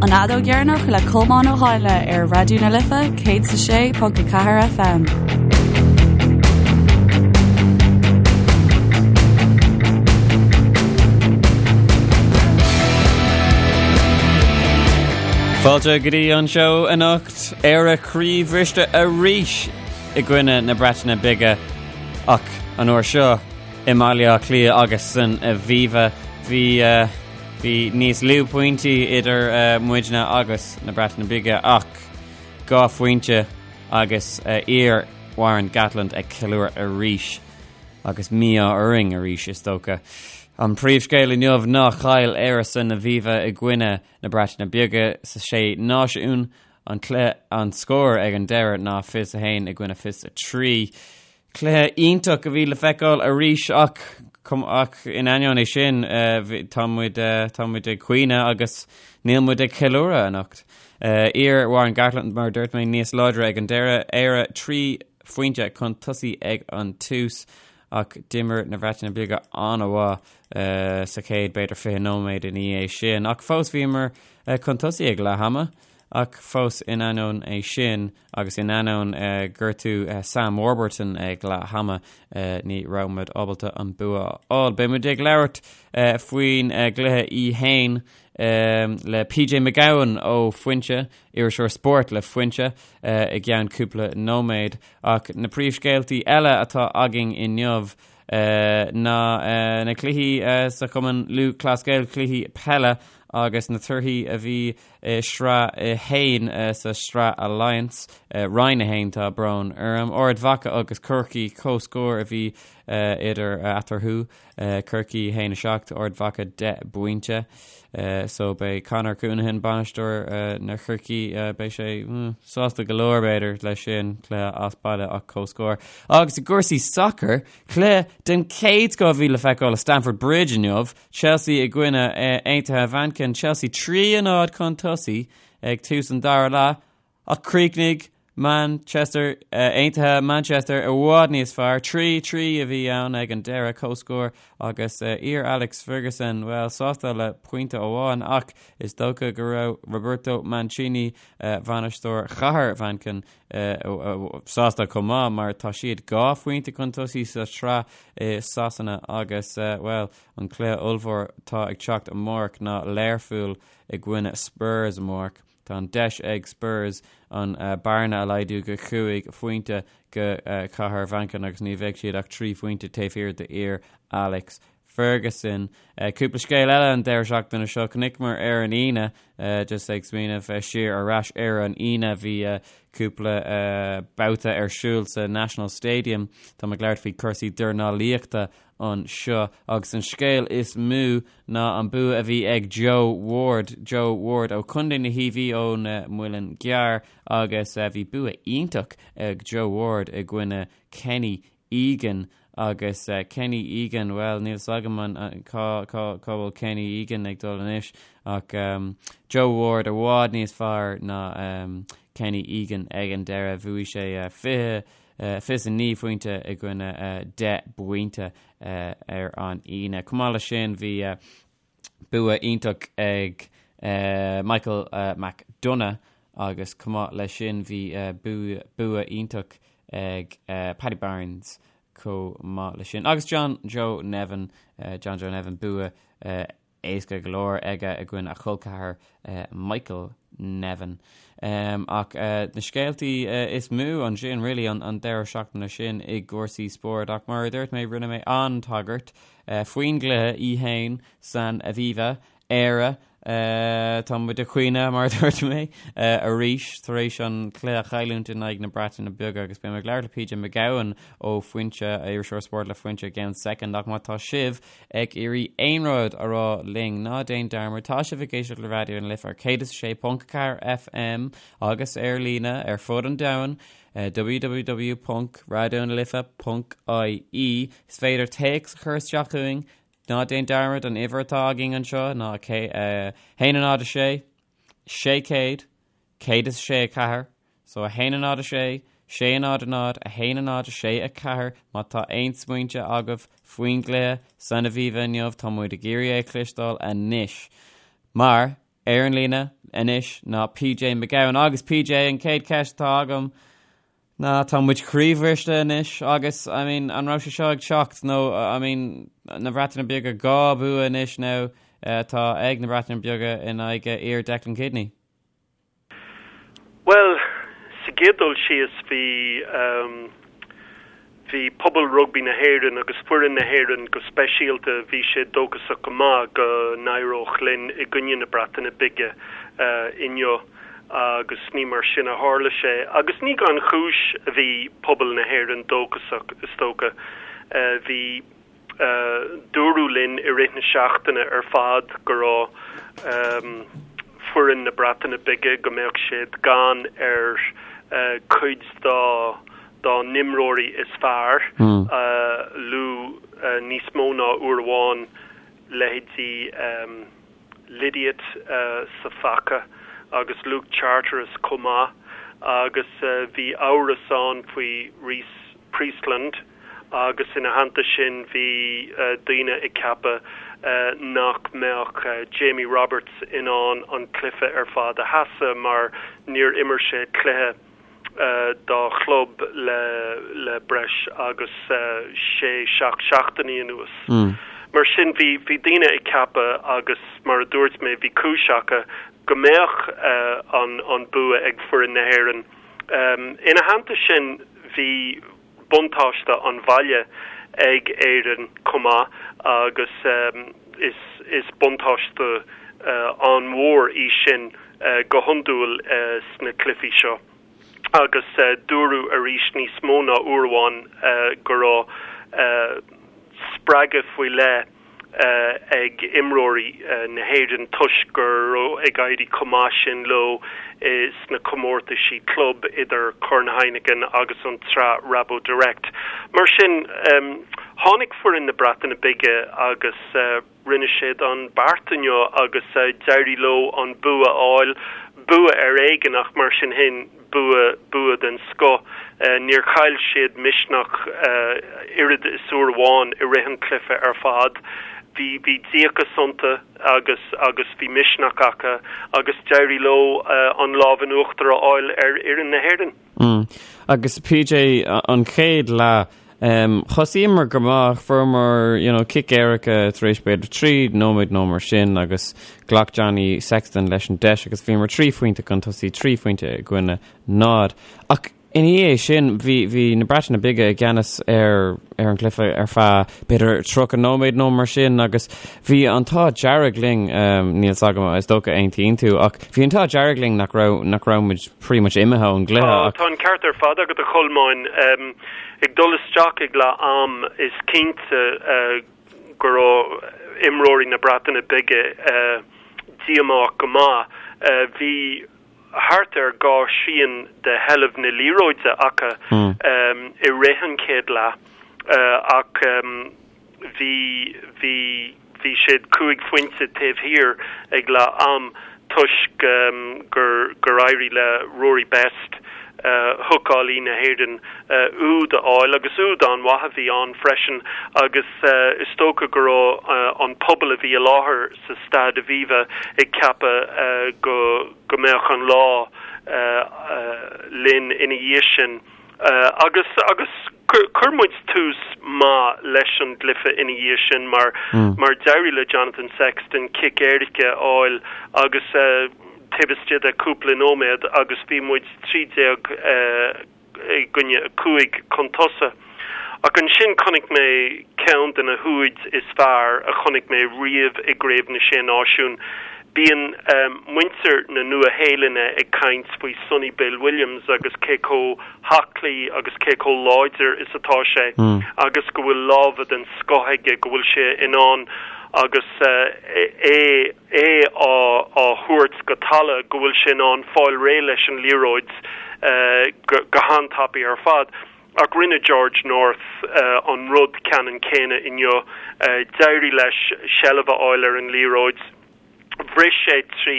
An Fheadóg Dheireanach le Colmán Ó hÁinle ar Raidió na Life 106.4 FM. Fáilte go dtí an seó anocht Éire croíbhriste arís i gcoinne na Breataine Bige ach an uair seo i mBaile Átha Cliath agus san Aviva bhí Bhí níos lú pointí idir muidne agus na Breataine Bige ach 2 phointe agus iar Warren Gatland ag ceiliúradh arís agus mí-ádh orainn arís is dócha. An príomhscéal inniu ná chaill Éire san Aviva i gcoinne na Breataine Bige sa Sé Náisiún. An cluiche an scór ag an deireadh ná 21 i gcoinne 23. Cluiche iontach a bhí le feiceáil arís ach ach in ainneoin é sin tá muid tá muid ag caoineadh agus níl muid ag ceiliúradh anocht. Iar Warren Gatland mar a dúirt mé níos láidre ag an deireadh, Éire 3 phointe chun tosaigh ag an tús ach d'imir na Breataine Bige an-mhaith sa chéad b'fhéidir 20 nóiméad ina dhiaidh sin ach fós bhíomar chun tosaigh ag leath ama ach fós in ainneoin é sin Agus in ainneoin gortú Sam Warburton ag leath ama, ní raibh muid ábalta an bua a fháil. Beidh muid ag labhairt faoin gcluiche í fhéin le PJ Mac Gabhann ó Foinse, iriseoir spóirt le Foinse, i gceann cúpla nóiméad. Ach na príomhscéaltaí eile atá againn inniu ná na cluichí sa Chumann Lúthchleas Gael, cluichí peile agus na torthaí a bhí i Sraith 1 sa Sraith Alliance, Roinn 1, tá brón orm. Ard Mhacha agus Corcaigh, comhscór a bhí idir eatarthu, Corcaigh 1 7, Ard Mhacha 10 bpointe. So beidh Conor Counihan, bainisteoir na Chorcaí, beidh sé sásta go leor b'fhéidir leis sin, cluiche as baile ach comhscór. Agus i gcúrsaí sacair, cluiche den chéad scoth a bhí le feiceáil i Stamford Bridge inniu, Chelsea i gcoinne Aontaithe Mhanchain, Chelsea 3-0 chun tosaigh ag tús an dara leath ach chríochnaigh Manchester Aontaithe Manchester i bhfad níos fearr. 3-3 a bhí ann ag an deireadh, comhscór agus iar Alex Ferguson, bhuel, sásta le pointe amháin ach is dócha go raibh Roberto Mancini, bainisteoir chathair Mhanchain, sásta chomh maith mar tá siad 2 phointe chun tosaigh sa tsraith i Sasana agus, bhuel, An cluiche ollmhór atá ag teacht amárach ná Learpholl i gcoinne Spurs amárach. Tá an deis ag Spurs an bearna a laghdú go chúig phointe go Cathair Mhanchain agus ní bheidh siad ach 3 phointe taobh thiar d'fhir Alex Ferguson. Cúpla scéal eile an deireadh seachtaine seo. Chonaiceamar ar an Aoine, just ag smaoineamh siar ar ais ar an Aoine, bhí cúpla babhta ar siúl sa National Stadium. Tá mé ag labhairt faoi cúrsaí dornálaíochta anseo agus an scéal is mó ná an bua a bhí ag Joe Ward, Joe Ward ó Chontae na hIarmhí ón Muileann gCearr agus bhí bua iontach ag Joe Ward i gcoinne Kenny Egan agus Kenny Egan, bhuel níl 's agam an cá cá cá bhfuil Kenny Egan ag dul anois ach Joe Ward i bhfad níos fearr ná Kenny Egan ag an deireadh, bhuaigh sé 20 29 phointe i gcoinne 10 bpointe ar an Aoine. Chomh maith leis sin bhí bua iontach ag Michael McDonagh agus chomh maith leis sin bhí bua iontach ag Paddy Barnes chomh maith leis sin. Agus John Joe Nevin, John Joe Nevin bua éasca go leor aige i gcoinne a chol ceathar Michael Nevin. Ach na scéaltaí is mó ansin really an deireadh seachtaine sin i gcúrsaí spóirt ach mar a dúirt mé rinne mé an-tagairt faoin gcluiche í fhéin san Aviva, Éire Tá muid ag caoineadh mar a dúirt mé arís tar éis an cluiche a chailliúint in aghaidh na Breataine Bige agus beidh mé ag labhairt le PJ Mac Gabhann ó Foinse, iriseoir spóirt le Foinse i gceann soicind ach má tá sibh ag iarraidh aon rud a rá linn, ná déan dearmad, tá sibh ag éisteacht le Raidió na Life ar 106.4 FM agus ar líne ar fud an domhain, www.raidionalife.ie. Is féidir téacs a chur isteach chugainn, ná déan dearmad an uimhir atá againn anseo ná 1 0 6 600 106 4. So 1 0 6, 6 0 0, 1 0 6 4, má tá aon smaointe agaibh faoin gcluiche san Aviva inniu, tá muid ag iarraidh é a chloisteáil anois. Mar, ar an líne, anois ná PJ McGowan agus PJ an chéad cheist atá agam ná tá muid croíbhriste anois agus I mean an raibh sé seo ag teacht nó I mean na Breataine Bige 2 bua anois now atá ag na Breataine Beaga in aghaidh fhir Declan Kidney. Bhuel, sa gcéad dul síos bhí bhí pobal rugbaí na hÉireann agus foireann na hÉireann go speisialta, bhí siad dóchasach go maith go n-éireodh linn i gcoinne na Breataine Bige inniu agus ní mar sin a tharla sé. Agus ní gan chúis a bhí pobal na hÉireann dóchasach, is dócha. Bhí. Dúradh linn i rith na seachtaine ar fad go raibh foireann na Breataine Bige, go mbeadh siad gann ar chuid dá dá n-imreoirí is fearr, luadh níos mó ná uair amháin leithéidí Lydiate sa phaca agus Luke Charteris chomh maith agus bhí amhras ann faoi Rhys Priestland agus ina theannta sin bhí daoine ag ceapadh nach mbeadh Jamie Roberts in ann an cluiche ar fad a sheasamh mar níor imir sé cluiche dá chlub le breis agus sé, seacht seachtainí anuas. Mar sin, bhí bhí daoine ag ceapadh agus mar a dúirt mé, bhí cúis acu go mbeadh an an bua ag foireann na hÉireann. Ina theannta sin, bhí buntáiste an bhaile ag Éirinn chomh maith agus is is buntáiste an-mhór í sin go hiondúil sna cluichí seo. Agus dúradh arís níos mó ná uair amháin go raibh spreagadh faoi leith ag imreoirí na hÉireann toisc go raibh ag éirí chomh maith sin leo sna comórtaisí club idir Corn Heineken agus an tSraith RaboDirect. Mar sin, tháinig foireann na Breataine Bige agus rinne siad an beart inniu agus d'éirigh leo an bua a fháil, bua ar éigean ach mar sin féin, Bua, bua den scoth. Níor chaill siad misneach oiread is uair amháin i rith an chluiche ar fad. Bhí, bhí díocas iontu agus, agus bhí misneach acu agus d'éirigh leo an lámh in uachtar a fháil ar fhoireann na hÉireann. Agus PJ, an chéad leath, Thosaíomar go maith, fuaireamar you know, cic éirice tar éis b'fhéidir 3 nóiméad nó mar sin agus ghlac Johnny Sexton leis an deis agus bhíomar 3 phointe chun tosaigh, 3 phointe i gcoinne 0. Ach ina dhiaidh sin bhí, bhí na Breataine Bige i gceannas ar, ar an gcluiche ar feadh b'fhéidir 30 nóiméad nó mar sin agus bhí an t-ádh dearg linn, níl 's agam, is dócha aontaíonn tú, ach bhí an t-ádh dearg linn nach raibh, nach raibh muid pretty much imithe ón gcluiche ach. Tá an ceart ar fad agat a Cholmáin. Ag dul isteach ag leath am is cinnte go raibh imreoirí na Breataine Bige díomách go maith. Bhí thart ar 2 thrian de sheilbh na liathróide acu i rith an chéad leath ach bhí bhí bhí siad 5 phointe taobh thiar ag leath am toisc gur gur éirigh le Rory Best, hookálaí na hÉireann, úd a fháil agus úd an-mhaith a bhí ann freisin agus is dócha go raibh an pobal a bhí i láthair sa Staid Aviva ag ceapadh go go mbeadh an lá linn ina dhiaidh sin. Agus agus chuir muid tús maith leis an gcluiche ina dhiaidh sin mar mar d'éirigh le Jonathan Sexton cic éirice a fháil agus taobh istigh de cúpla nóiméad agus bhí muid 13 i gcoinne 5 chun tosaigh. Ach ansin chonaic mé ceann de na húid is fearr a chonaic mé riamh i gCraobh na Sé Náisiún. Bíonn muintir na Nua-Shéalainne ag caint faoi Sonny Bill Williams agus cé chomh haclaí agus cé chomh láidir is atá sé agus go bhfuil lámha den scoth aige, go bhfuil sé in ann agus é é á thabhairt go talamh, go bhfuil sé in ann fáil réidh leis an liathróid go han-tapaidh ar fad. Ach rinne George North an rud ceannann céanna inniu. D'éirigh leis seilbh a fháil ar an liathróid, bhris sé trí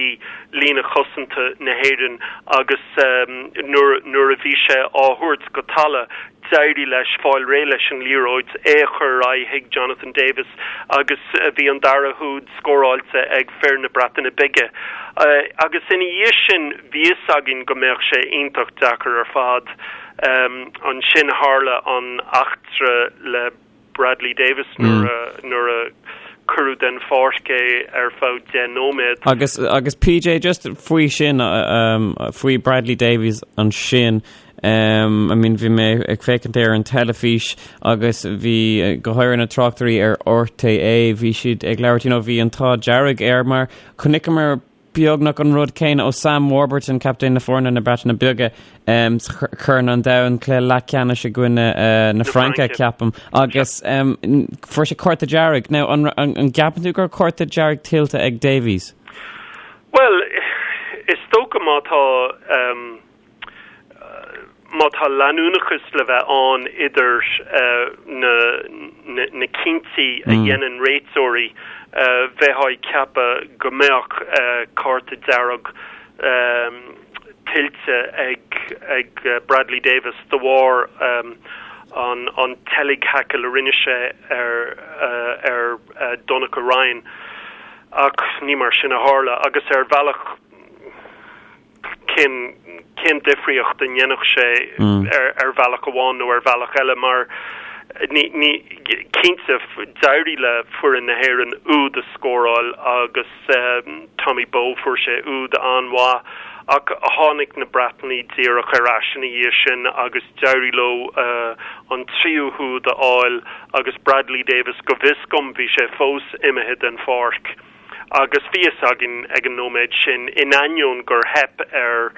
líne chosanta na hÉireann agus nuair a bhí sé á thabhairt go talamh, D'éirigh leis fáil réidh leis an liathróid, é a chur ar aghaidh chuig Jonathan Davies agus bhí an dara húd scóráilte ag fir na Breataine Bige. Agus ina dhiaidh sin bhí fhios againn go mbeadh sé iontach deacair ar fad. Ansin tharla an eachtra le Bradley Davies nuair a cuireadh den pháirc é ar feadh 10 nóiméad. Agus agus PJ just faoi sin faoi Bradley Davies ansin um, I mean bhí mé ag féachaint ar an teilifís agus bhí go háirithe na tráchtairí ar RTÉ bhí siad ag labhairt you know, bhí an t-ádh dearg air mar chonaiceamar beagnach an rud céanna ó Sam Warburton, captaen na foirne na Breataine Bige, sa Chorn an Domhain, cluiche leathcheannais i gcoinne na Fraince, ceapaim, agus fuair sé cárta dearg. Now, an gceapann tú go raibh cárta dearg tuillte ag Davies? Bhuel, is dócha má tá. Má tá leanúnachas le bheith ann idir na cinntí a dhéanann réiteoirí, bheifeá ag ceapadh go mbeadh cárta dearg tuillte ag Bradley Davies de bharr an tseilg thaicil a rinne sé ar Donnacha Ryan. Ach ní mar sin a tharla agus ar bhealach, cén cén difríocht a ndéanfadh sé ar ar bhealach amháin nó ar bhealach eile mar ní ní cinnte d'éirigh le foireann na hÉireann úd a scóráil agus Tommy Bowe fuair sé úd an-mhaith ach tháinig na Breatanaigh díreach ar ais ina dhiaidh sin agus d'éirigh leo an tríú húd a fháil agus Bradley Davies go bhfios dom bhí sé fós imithe den pháirc. Agus bhí fhios againn ag an nóiméad sin, in ainneoin gur theip ar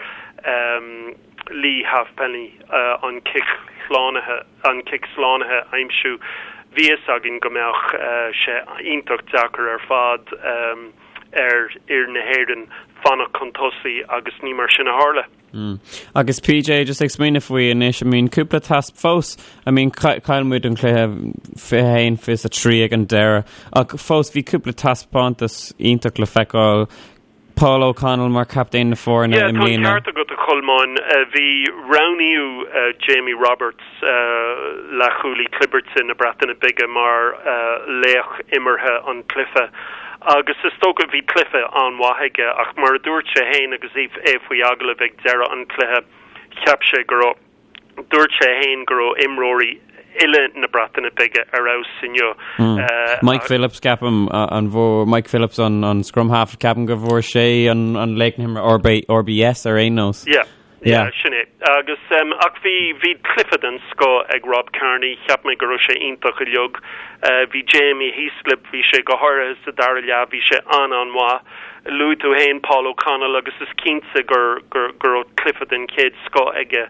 Leigh Halfpenny an cic shlánaithe, an cic slánaithe a aimsiú, bhí fhios againn go mbeadh sé iontach deacair ar fad ar fhir na hÉireann fanacht chun tosaigh agus ní mar sin a tharla. Agus PJ, just ag smaoineamh faoi anois, I mean, cúpla tasc fós, I mean, chaill muid an cluiche 21, 23 ag an deireadh, ach fós bhí cúpla taispeántas iontach le feiceáil. Paul O'Connell mar captaen na foirne i mbliana. Yeah, tá an ceart agat a Cholmáin. Bhí roghnaíodh Jamie Roberts, leathchúlaí clibirte na Breataine Bige mar laoch imeartha an chluiche agus is dócha bhí cluiche an-mhaith aige ach mar a dúirt sé féin agus é faoi agallamh ag deireadh an chluiche cheap sé go raibh, dúirt sé féin go raibh imreoirí uile na Breataine Bige ar fheabhas inniu. Mike Phillips ceapaim an bhfuair Mike Phillips an scrum half ceapaim go bhfuair sé an laoch na himeartha RBS ar aon nós. Yeah. Yeah, sin é. Agus, ach bhí, bhí cluiche den scoth ag Rob Kearney, cheap mé go raibh sé iontach uilig. Bhí Jamie Heaslip, bhí sé go háirithe sa dara leath, bhí sé an-an-mhaith. Luaigh tú féin Paul O'Connell agus is cinnte gur, gur, go raibh cluiche den chéad scoth aige.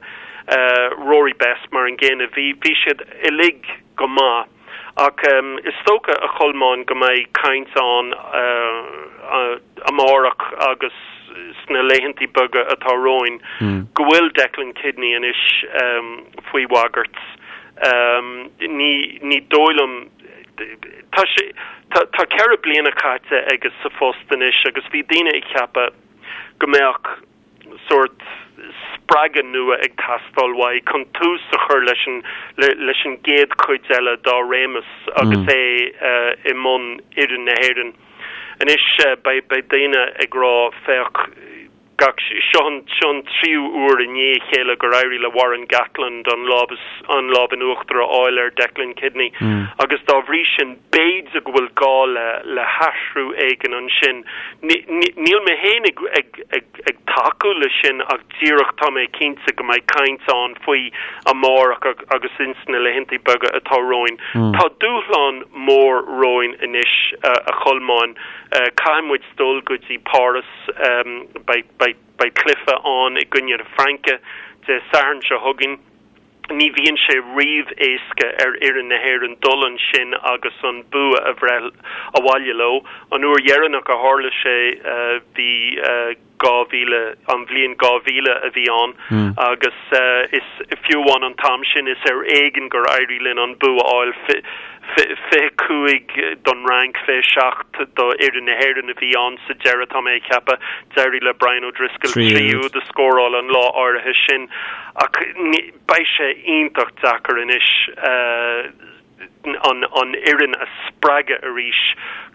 Rory Best mar an gcéanna, bhí, bhí siad uilig go maith. Ach is dócha, a Cholmáin, go mbeidh caint ann amárach agus sna laethantaí beaga atá romhainn go bhfuil Declan Kidney anois faoi bhagairt. Ní dóigh liom, tá sé, tá 4 bliana caite aige sa phost anois agus bhí daoine ag ceapadh go mbeadh sórt spreagadh nua ag teastáil uaidh chun tús a chur leis an leis an gcéad chuid eile dá réimeas agus é i mbun fhoireann na hÉireann. Anois beidh beidh daoine ag rá féach gach seo an seo an tríú uair i ndiaidh a chéile gur éirigh le Warren Gatland an lámh an lámh in uachtar a fháil ar Declan Kidney agus dá bhrí sin b'fhéidir go bhfuil gá le le hathrú éigin ansin. Níl mé féin ag ag ag ag tacú leis sin ach díreach tá mé cinnte go mbeidh caint ann faoi amárach agus ins na laethantaí beaga atá romhainn. Tá dúshlán mór romhainn anois, a Cholmáin. Caithfidh muid dul go dtí Páras, beidh beidh beidh cluiche ann i gcoinne na Fraince Dé Sathairn seo chugainn. Ní bhíonn sé riamh éasca ar fhoireann na hÉireann dul ansin agus an bua a bhreith abhaile leo. An uair dheireanach a tharla sé, bhí. 2000, an bhliain 2000 a bhí ann agus is fiú amháin an t-am sin is ar éigean gur éirigh linn an bua a fháil, 25 don Fhrainc, 27 do fhoireann na hÉireann a bhí ann sa deireadh, tá mé ag ceapadh. D'éirigh le Brian O'Driscoll 3 úd a scóráil an lá áirithe sin ach beidh sé iontach deacair anois an fhoireann a spreagadh arís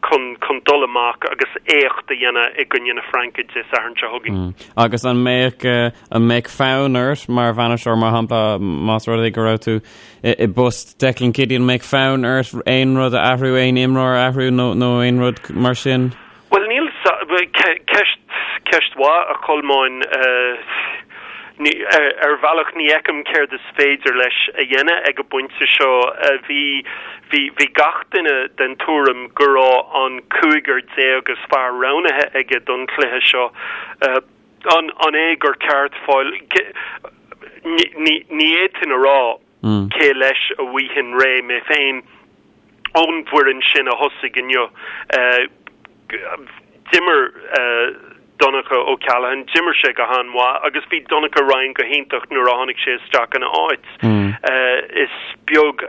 chun chun dul amach agus éacht a dhéanamh i gcoinne na Fraince Dé Sathairn seo chugainn. Agus an mbeadh an mbeadh fonn ort mar bhainisteoir, mar shampla, más rud é go raibh tú i bpost Declan Kidney, an mbeadh fonn ort aon rud a athrú, aon imreoir a athrú nó nó aon rud mar sin? Bhuel, níl, ceist, ceist mhaith, a Cholmáin. Ar bhealach ní fheicim céard is féidir leis a dhéanamh ag an bpointe seo. Bhí, bhí, bhí gach duine den tuairim go raibh an cúigear déag is fearr roghnaithe aige don chluiche seo. An, an é gur ceart fáil, ní, ní, ní fhéadfainn a rá. Cé leis a bhfaighinn réidh mé féin ón bhfoireann sin a thosaigh inniu? D'imir Donncha O'Callaghan, d'imir sé go han-mhaith agus bhí Donnacha Ryan go hiontach nuair a tháinig sé isteach ina áit. Is beag,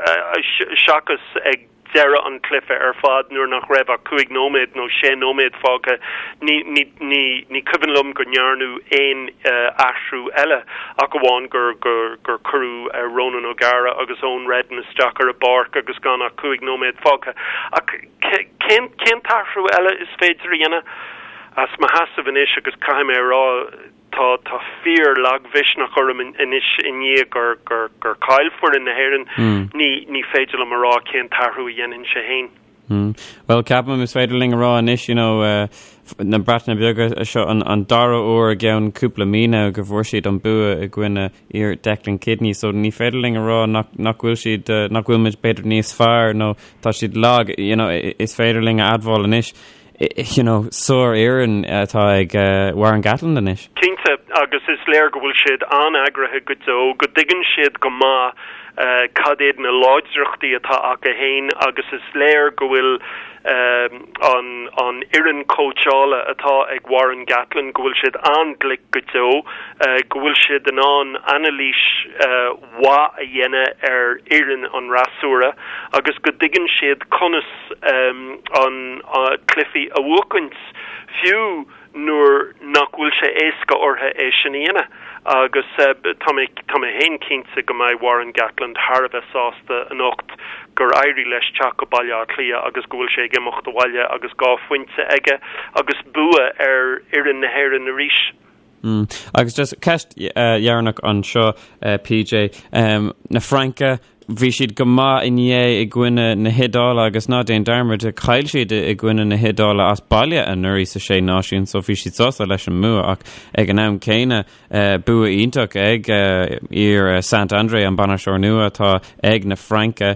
seachas ag deireadh an chluiche ar fad nuair nach raibh ach cúig nóiméad nó sé nóiméad fágtha, ní, ní, ní, ní cuimhin liom go ndearnadh aon athrú eile ach amháin gur, gur, gur cuireadh Ronan O'Gara agus Eoin Reddan isteach ar an bpáirc agus gan ach cúig nóiméad fágtha. Ach cén, cén t-athrú eile is féidir a dhéanamh? As mo sheasamh anois agus caithfidh mé a rá, Tá tá fíor-lagmhisneach orm anois i ndiaidh gur gur gur chaill foireann na hÉireann. Ní ní féidir liom a rá cén t-athrú a dhéanfainnse féin. Bhuel, ceapaim is féidir linn a rá anois, you know, na Breataine Bige seo an an dara huair i gceann cúpla mí now go bhfuair siad an bua i gcoinne fhir Declan Kidney, so ní féidir linn a rá nach nach bhfuil siad nach bhfuil muid b'fhéidir níos fearr nó tá siad lag, you know, is féidir linn a admháil anois. you know, sárfhoireann atá ag Warren Gatland anois. Cinnte, agus is léir go bhfuil siad an-eagraithe go deo, go dtuigeann siad go maith cad iad na láidreachtaí atá acu féin agus is léir go bhfuil an an fhoireann cóitseála atá ag Warren Gatland, go bhfuil siad an-ghlic go deo, go bhfuil siad in ann anailís mhaith a dhéanamh ar fhoireann an fhreasúra agus go dtuigeann siad conas an cluichí a bhuachaint, fiú nuair nach bhfuil sé éasca orthu é sin a dhéanamh. Agus tá mé tá mé féin cinnte go mbeidh Warren Gatland thar a bheith sásta anocht gur éirigh leis teacht go Baile Átha Cliath agus go bhfuil sé ag imeacht abhaile agus 2 phointe aige agus bua ar fhoireann na hÉireann arís. Agus just ceist dheireanach anseo, PJ. Na Fraince, bhí siad go maith inné i gcoinne na hIodáile agus ná déan dearmad, chaill siad i gcoinne na hIodáile as baile anuraidh sa Sé Náisiún so bhí siad sásta leis an mbua ach ag an am céanna bua iontach ag fhir Saint-André, an bainisteoir nua atá ag na Fraince.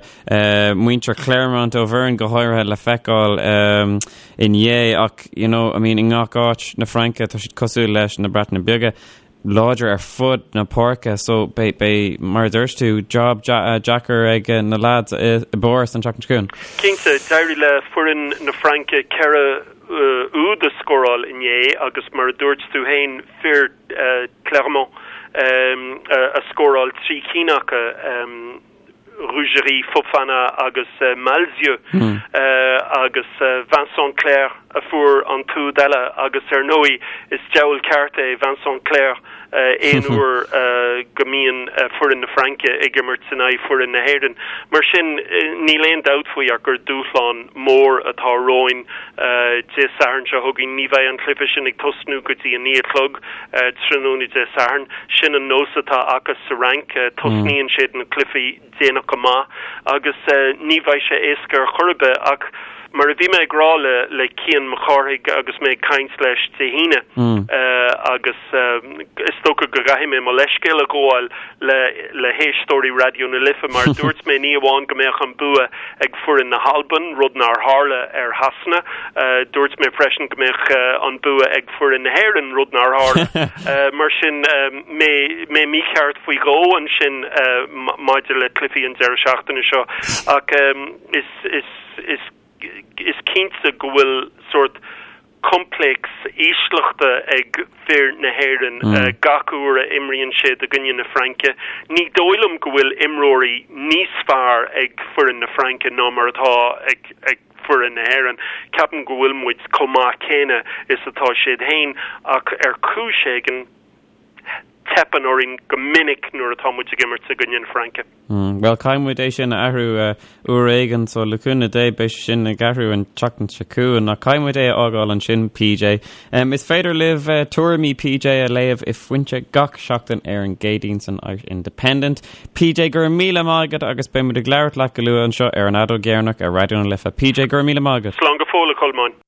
Muintir Clermont Auvergne go háirithe le feiceáil inné ach you know, I mean, i ngach áit na Fraince tá siad cosúil leis na Breataine Bige láidir ar fud na páirce so beidh, beidh, mar a dúirt tú, job deacair ag na lads i bPáras an tseachtain seo chugainn. Cinnte, d'éirigh le foireann na Fraince 4 úd a scóráil inné agus mar a dúirt tú féin, fir Clermont a scóráil 3 cinn acu. Rougerie, Fofana agus Malzieu agus Vincent Clerc a fuair an t-úd eile agus ar ndóigh is diabhal ceart é Vincent Clerc aon uair go mbíonn foireann na Fraince ag imirt in aghaidh foireann na hÉireann. Mar sin níl aon dabht faoi ach gur dúshlán mór atá romhainn Dé Sathairn seo chugainn. Ní bheidh an cluiche sin ag tosnú go dtí a 9 a chlog. tráthnóna Dé Sathairn. Sin an nós atá acu sa Fhrainc, tosnaíonn siad na cluichí déanach go maith agus ní bheidh sé éasca ar chor ar bith ach mar a bhí mé ag rá le le Cian Mac Cárthaigh agus mé ag caint leis Dé hAoine agus is dócha go gcaithfidh mé mo leithscéal a ghabháil le le héisteoirí Raidió na Life mar dúirt mé ní amháin go mbeadh an bua ag foireann na hAlban, rud nár tharla ar Shasana, dúirt mé freisin go mbeadh an bua ag foireann na hÉireann, rud nár tharla. Mar sin, mé mé mícheart faoi dhó ansin maidir le cluichí an deireadh seachtaine seo ach is is is is cinnte go bhfuil sórt. Coimpléacs ísleachta ag fir na hÉireann gach uair a imríonn siad i gcoinne na Fraince. Ní dóigh liom go bhfuil imreoirí níos fearr ag foireann na Fraince ná mar atá ag foireann na hÉireann. Ceapaim go bhfuil muid chomh maith céanna is atá siad féin ach ar chúis éigin teipeann orainn go minic nuair atá muid ag imirt i gcoinne na Fraince. Bhuel, caithfidh muid é sin a athrú uair éigin, so le cúnamh Dé beidh sé sin ag athrú an tseachtain seo chugainn, ach caithfidh muid é a fhágáil ansin, PJ. Is féidir libh tuairimí PJ a léamh i Foinse gach seachtain ar an gCéadaoin san Irish Independent. PJ, go raibh míle maith agat agus beidh muid ag labhairt leat go luath anseo ar an Fheadóg Dheireanach ar Raidió na Life. PJ, go raibh míle maith agat. Slán go fóill, a Cholmáin.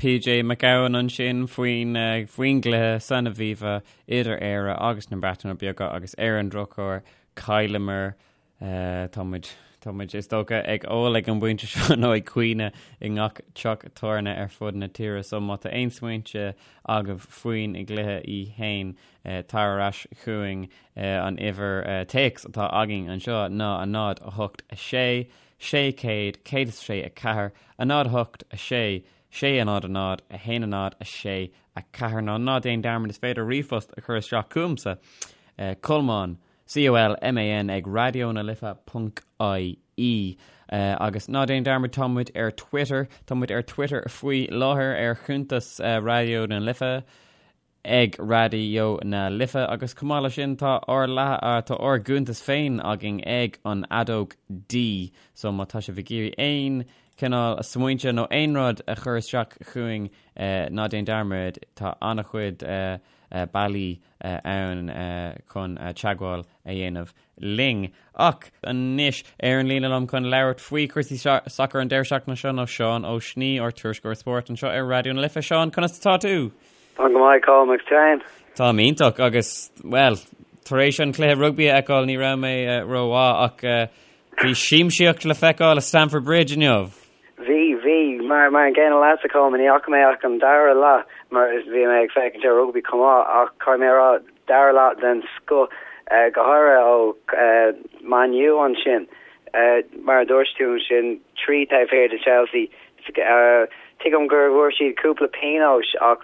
PJ Mac Gabhann ansin faoin faoin gcluiche san Aviva idir Éire agus na Breataine Bige agus ar an drochuair chailleamar. Tá muid tá muid is dócha ag ól ag an bpointe seo nó ag caoineadh i ngach teach tábhairne ar fud na tíre so má tá aon smaointe agaibh faoin gcluiche í fhéin tar ar ais chugainn an uimhir téacs atá againn anseo ná 0 8 6 600 106 4 0 8 6 6 0 0 1 0 6 4 Ná ná déan dearmad is féidir ríomhphost a chur isteach chugamsa, Colmán, C-O-L-M-A-N ag raidió na life ponc I-E. Agus ná déan dearmad tá muid ar Twitter, tá muid ar Twitter faoi láthair ar chuntas Raidió na Life, ag Raidió na Life agus chomh maith leis sin tá ár tá ár gcuntas féin againn ag an Fheadóg D so má tá sibh ag iarraidh aon cineál smaointe nó aon rud a chur isteach chugainn ná déan dearmad tá an-chuid bealaí ann chun teagmháil a dhéanamh linn. Ach anois, ar an líne liom chun labhairt faoi chúrsaí sacair an deireadh seachtaine seo ná Seán Ó Snoí, ár tuairisceoir spóirt anseo ar Raidió na Life. Seán, conas atá tú? Táim go maith, Colm, agus tú féin? Táim iontach agus, bhuel, tar éis an cluiche rugbaí a fheiceáil ní raibh mé rómhaith ach bhí siamsaíocht le feiceáil i Stamford Bridge inniu. Bhí, bhí. Mar, mar an gcéanna leatsa, Colm, ní fhaca mé ach an dara leath mar bhí mé ag féachaint ar rugbaí chomh maith ach caithfidh mé a rá, dara leath den scoth, go háirithe ó Man U ansin. Mar a dúirt tú ansin, 3 taobh thiar de Chelsea. Tuigim gur bhfuair siad cúpla pionóis ach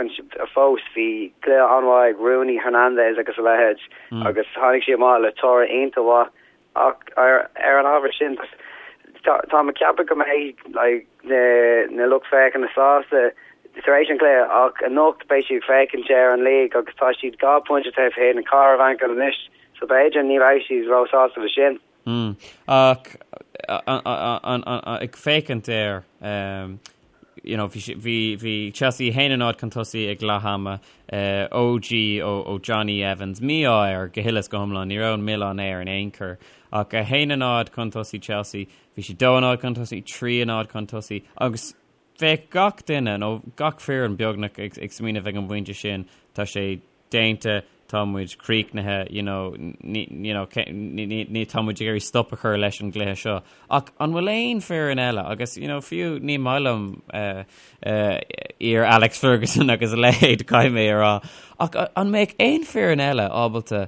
fós bhí cluiche an-mhaith ag Rooney, Hernandez agus a leithéid agus tháinig siad amach le toradh iontach mhaith. Ach ar an ábhar sin, táim ag ceapadh go mbeidh like, na, na lucht féachana sásta tar éis an chluiche ach anocht beidh siad ag féachaint ar an league agus tá siad 2 phointe taobh thiar den Chathair Mhanchain anois so b'fhéidir ní bheidh siad róshásta le sin. Mm. Ach ag féachaint air, you know, bhí, bhí, bhí Chelsea 1-0 chun tosaigh ag leath ama, OG ó, ó Jonny Evans, mí-ádh air go huile is go hiomlán, ní raibh an milleán air in aon chor. Ach 1-0 chun tosaigh Chelsea, bhí siad 2-0 chun tosaigh, 3-0 chun tosaigh, agus bheadh gach duine, nó gach foireann beagnach ag, ag smaoineamh ag an bpointe sin, tá sé déanta, tá muid críochnaithe, you know, ní, you know, ní, ní, ní, tá muid ag iarraidh stop a chur leis an gcluiche seo. Ach an bhfuil aon foireann eile, agus, you know, fiú ní maith liom uh, uh, iar Alex Ferguson agus a leithéid caithfidh mé a rá, ach an mbeadh aon foireann eile ábalta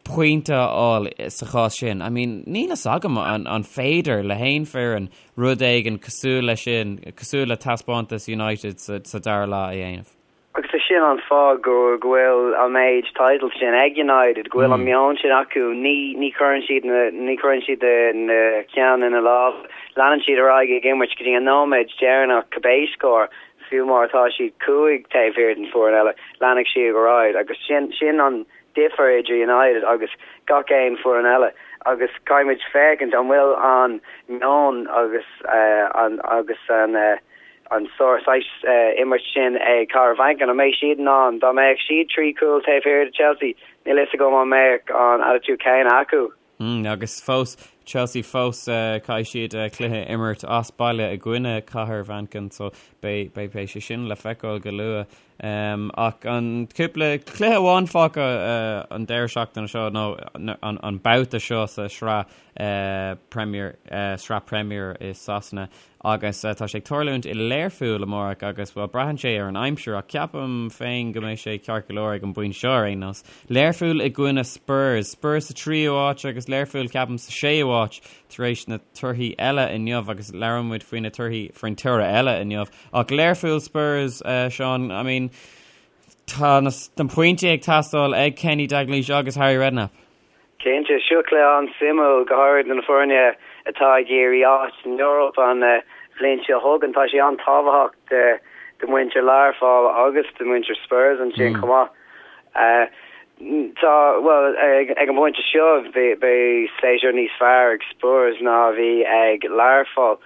pointe a fháil sa chás sin? I mean, níl fhios agam an, an féidir le haon foireann rud éigin cosúil leis sin, cosúil le taispeántas United sa, sa dara leath a dhéanamh. Agus is sin an fáth go go bhfuil an méid titles sin ag United, go bhfuil an meon sin acu. Ní ní chuireann siad na ní chuireann siad na ceann ina lámh. Leanann siad ar aghaidh ag imirt go dtí an nóiméad deireanach cibé scór, fiú má tá siad 5 taobh thiar den foireann eile, leanfaidh siad ar aghaidh agus sin sin an difear idir United agus gach aon foireann eile agus caithfimid féachaint an bhfuil an meon agus an agus an an sórt saghas imirt sin ag Cathair Mhanchain, an mbeidh siad in ann, dá mbeadh siad 3 chúl taobh thiar de Chelsea, níl fhios agam an mbeadh an attitude céanna acu. Agus fós, Chelsea fós, caithfidh siad cluiche a imirt as baile i gcoinne Cathair Mhanchain so beidh, beidh, beidh sé sin le feiceáil go luath. Ach an cúpla cluiche amháin fágtha an deireadh seachtaine seo nó an babhta seo sa sraith Premier, sraith Premier i Sasana agus tá sé ag tarlúint i Learpholl amárach agus bhuel braitheann sé ar an aimsir ach ceapaim féin go mbeidh sé ceart go leor ag an bpointe seo ar aon nós. Learpholl i gcoinne Spurs. Spurs sa tríú háit agus Learpholl ceapaim sa séú háit tar éis na torthaí eile inniu agus labhróidh muid faoi na torthaí faoin toradh eile inniu. Ach Learpholl Spurs, Seán, I mean, tá na pointí ag teastáil ag Kenny Dalglish agus Harry Redknapp. Cinnte, seo cluiche an-suimiúil, go háirid do na foirne atá ag iarraidh áit san Eoraip an bhliain seo chugainn. Tá sé an-tábhachtach do mhuintir Learpholl agus do mhuintir Spurs ansin chomh maith. Tá, bhuel, ag an bpointe seo beidh séasúr níos fearr ag Spurs ná a bhí ag Learpholl.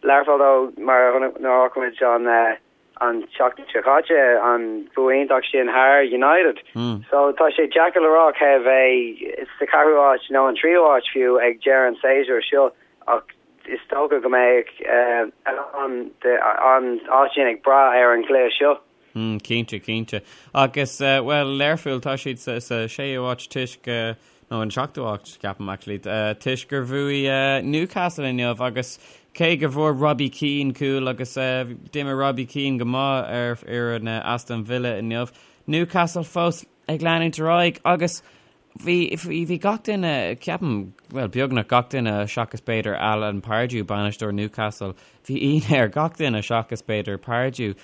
Learpholl though, mar a chonaic muid an an tseachtain seo caite, an bua iontach sin thar United. So tá sé deacair le rá cé a bheidh sa cheathrú háit nó an tríú háit fiú ag deireadh an tséasúir seo ach is dócha go mbeidh an an áit sin ag brath ar an gcluiche seo. Cinnte, cinnte. Agus, bhuel, Learpholl, tá siad sa séú háit toisc, nó an seachtú háit, ceapaim, actually, toisc gur bhuaigh Newcastle inniu agus cé go bhfuair Robbie Keane cúl agus d'imir Robbie Keane go maith ar fhoireann Aston Villa inniu, Newcastle fós ag leanúint ar aghaidh agus Bhí, bhí gach duine, ceapaim, bhuel, beagnach gach duine seachas b'fhéidir Alan Pardew, bainisteoir Newcastle, bhí ionadh ar gach duine seachas b'fhéidir Pardew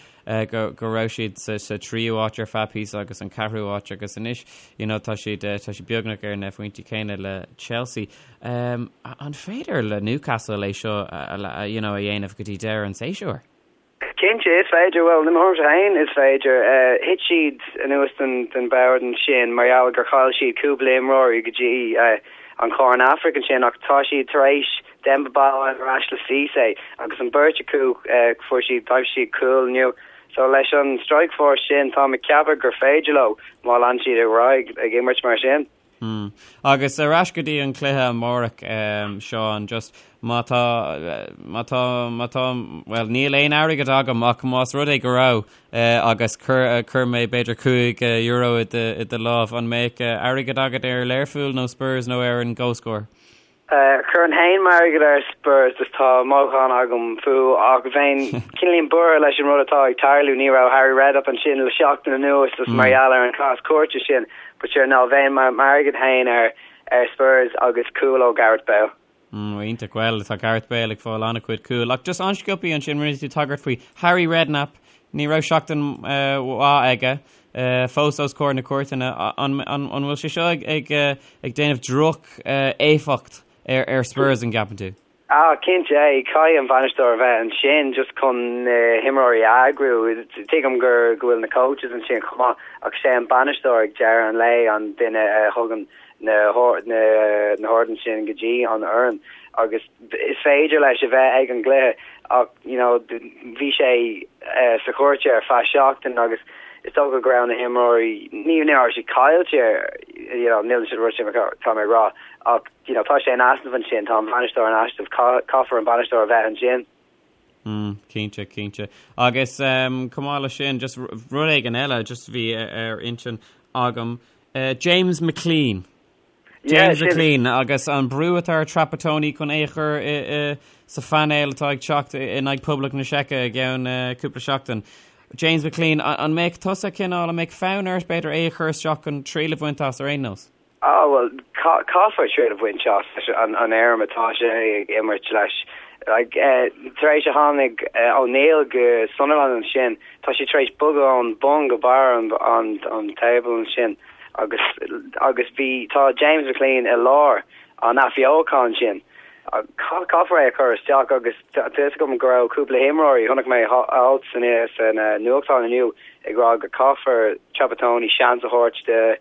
go, go raibh siad sa, sa tríú háit ar feadh píosa agus an ceathrú háit agus anois, you know, tá siad, tá siad beagnach ar na phointí céanna le Chelsea. Um, an féidir le Newcastle é seo a, you know, a dhéanamh go dtí deireadh an tséasúir? Cinnte, is féidir. Bhuel, i mo thuairimse féin, is féidir. Thit siad anuas den bhord ansin mar gheall gur chaill siad cúpla imreoirí go dtí an Chorn Afraic ansin ach tá siad tar éis Demba Ba a fháil ar ais le Cissé agus an bheirt acu fuair siad, d'aimsigh siad cúl inniu. So leis an strike force sin, táim ag ceapadh gur féidir leo má lean siad ar aghaidh ag imirt mar sin. Hmm. Agus ar ais go dtí an cluiche amárach, Seán, just má tá, má tá, má tá, bhuel, níl aon airgead agam ach más rud é go raibh agus chuir, chuir mé b'fhéidir €5 i do, i do lámh, an mbeadh airgead agat ar Learpholl nó Spurs nó ar an gcomhscór? Chuirfinn féin m'airgead ar Spurs is tá mothúchán agam fúthu ach bheinn cineáilín buartha leis an rud atá ag tarlú. Ní raibh Harry Redknapp ansin le seachtain anuas is mar gheall ar an chás cúirte sin but sure no bheinn m'airgead féin ar ar Spurs agus cúl ó Gareth Bale. Mm, iontach bhuel tá Gareth Bale ag fáil an-chuid cúl ach just an-sciobtha ansin rinne tú tagairt faoi Harry Redknapp ní raibh seachtain mhaith aige. fós os comhair na cúirteanna. An bhfuil sé seo ag déanamh droch éifeacht ar Spurs an gceapann tú? Ah, cinnte, caithfidh an bainisteoir a bheith ansin just chun na himreoirí a eagrú. Tuigim gur go bhfuil na coaches ansin chomh maith ach sé an bainisteoir ag deireadh an lae an duine a thugann na na horduithe sin go dtí an fhoireann agus is féidir leis a bheith ag an gcluiche ach you know bhí sé sa chúirt ar feadh seachtain agus is dócha go raibh na himreoirí ní ní raibh siad caillte you know níl siad rud sin tá mé ag rá ach you know tá sé in easnamh ansin tá an bainisteoir in easnamh caithfear an bainisteoir a bheith ansin. Mm, cinnte, cinnte. Agus um, chomh maith leis sin, just rud éigin eile, just bhí ar intinn agam, uh, James McClean. James McClean agus an brú atá ar Trapattoni chun é a chur sa phainéal atá ag teacht in aghaidh Poblacht na Seice i gceann cúpla seachtain. James McClean, an mbeadh tusa cineál, an mbeadh fonn ort b'fhéidir é a chur isteach chun triail a bhaint as ar aon nós? Ah bhuel, caithfear triail a bhaint as leis an fhoirm atá sé ag imirt leis. Like, tar éis a tháinig O'Neill go Sunderland ansin, tá sé tar éis bogadh ón bun go barr an table ansin. Agus agus bhí, tá James McClean i lár an athbheocháin sin. Caithfear é a chur isteach agus tá fhios agam go raibh cúpla imreoirí, chonaic mé alt san san nuachtán inniu ag rá go caithfear Trapattoni seans a thabhairt do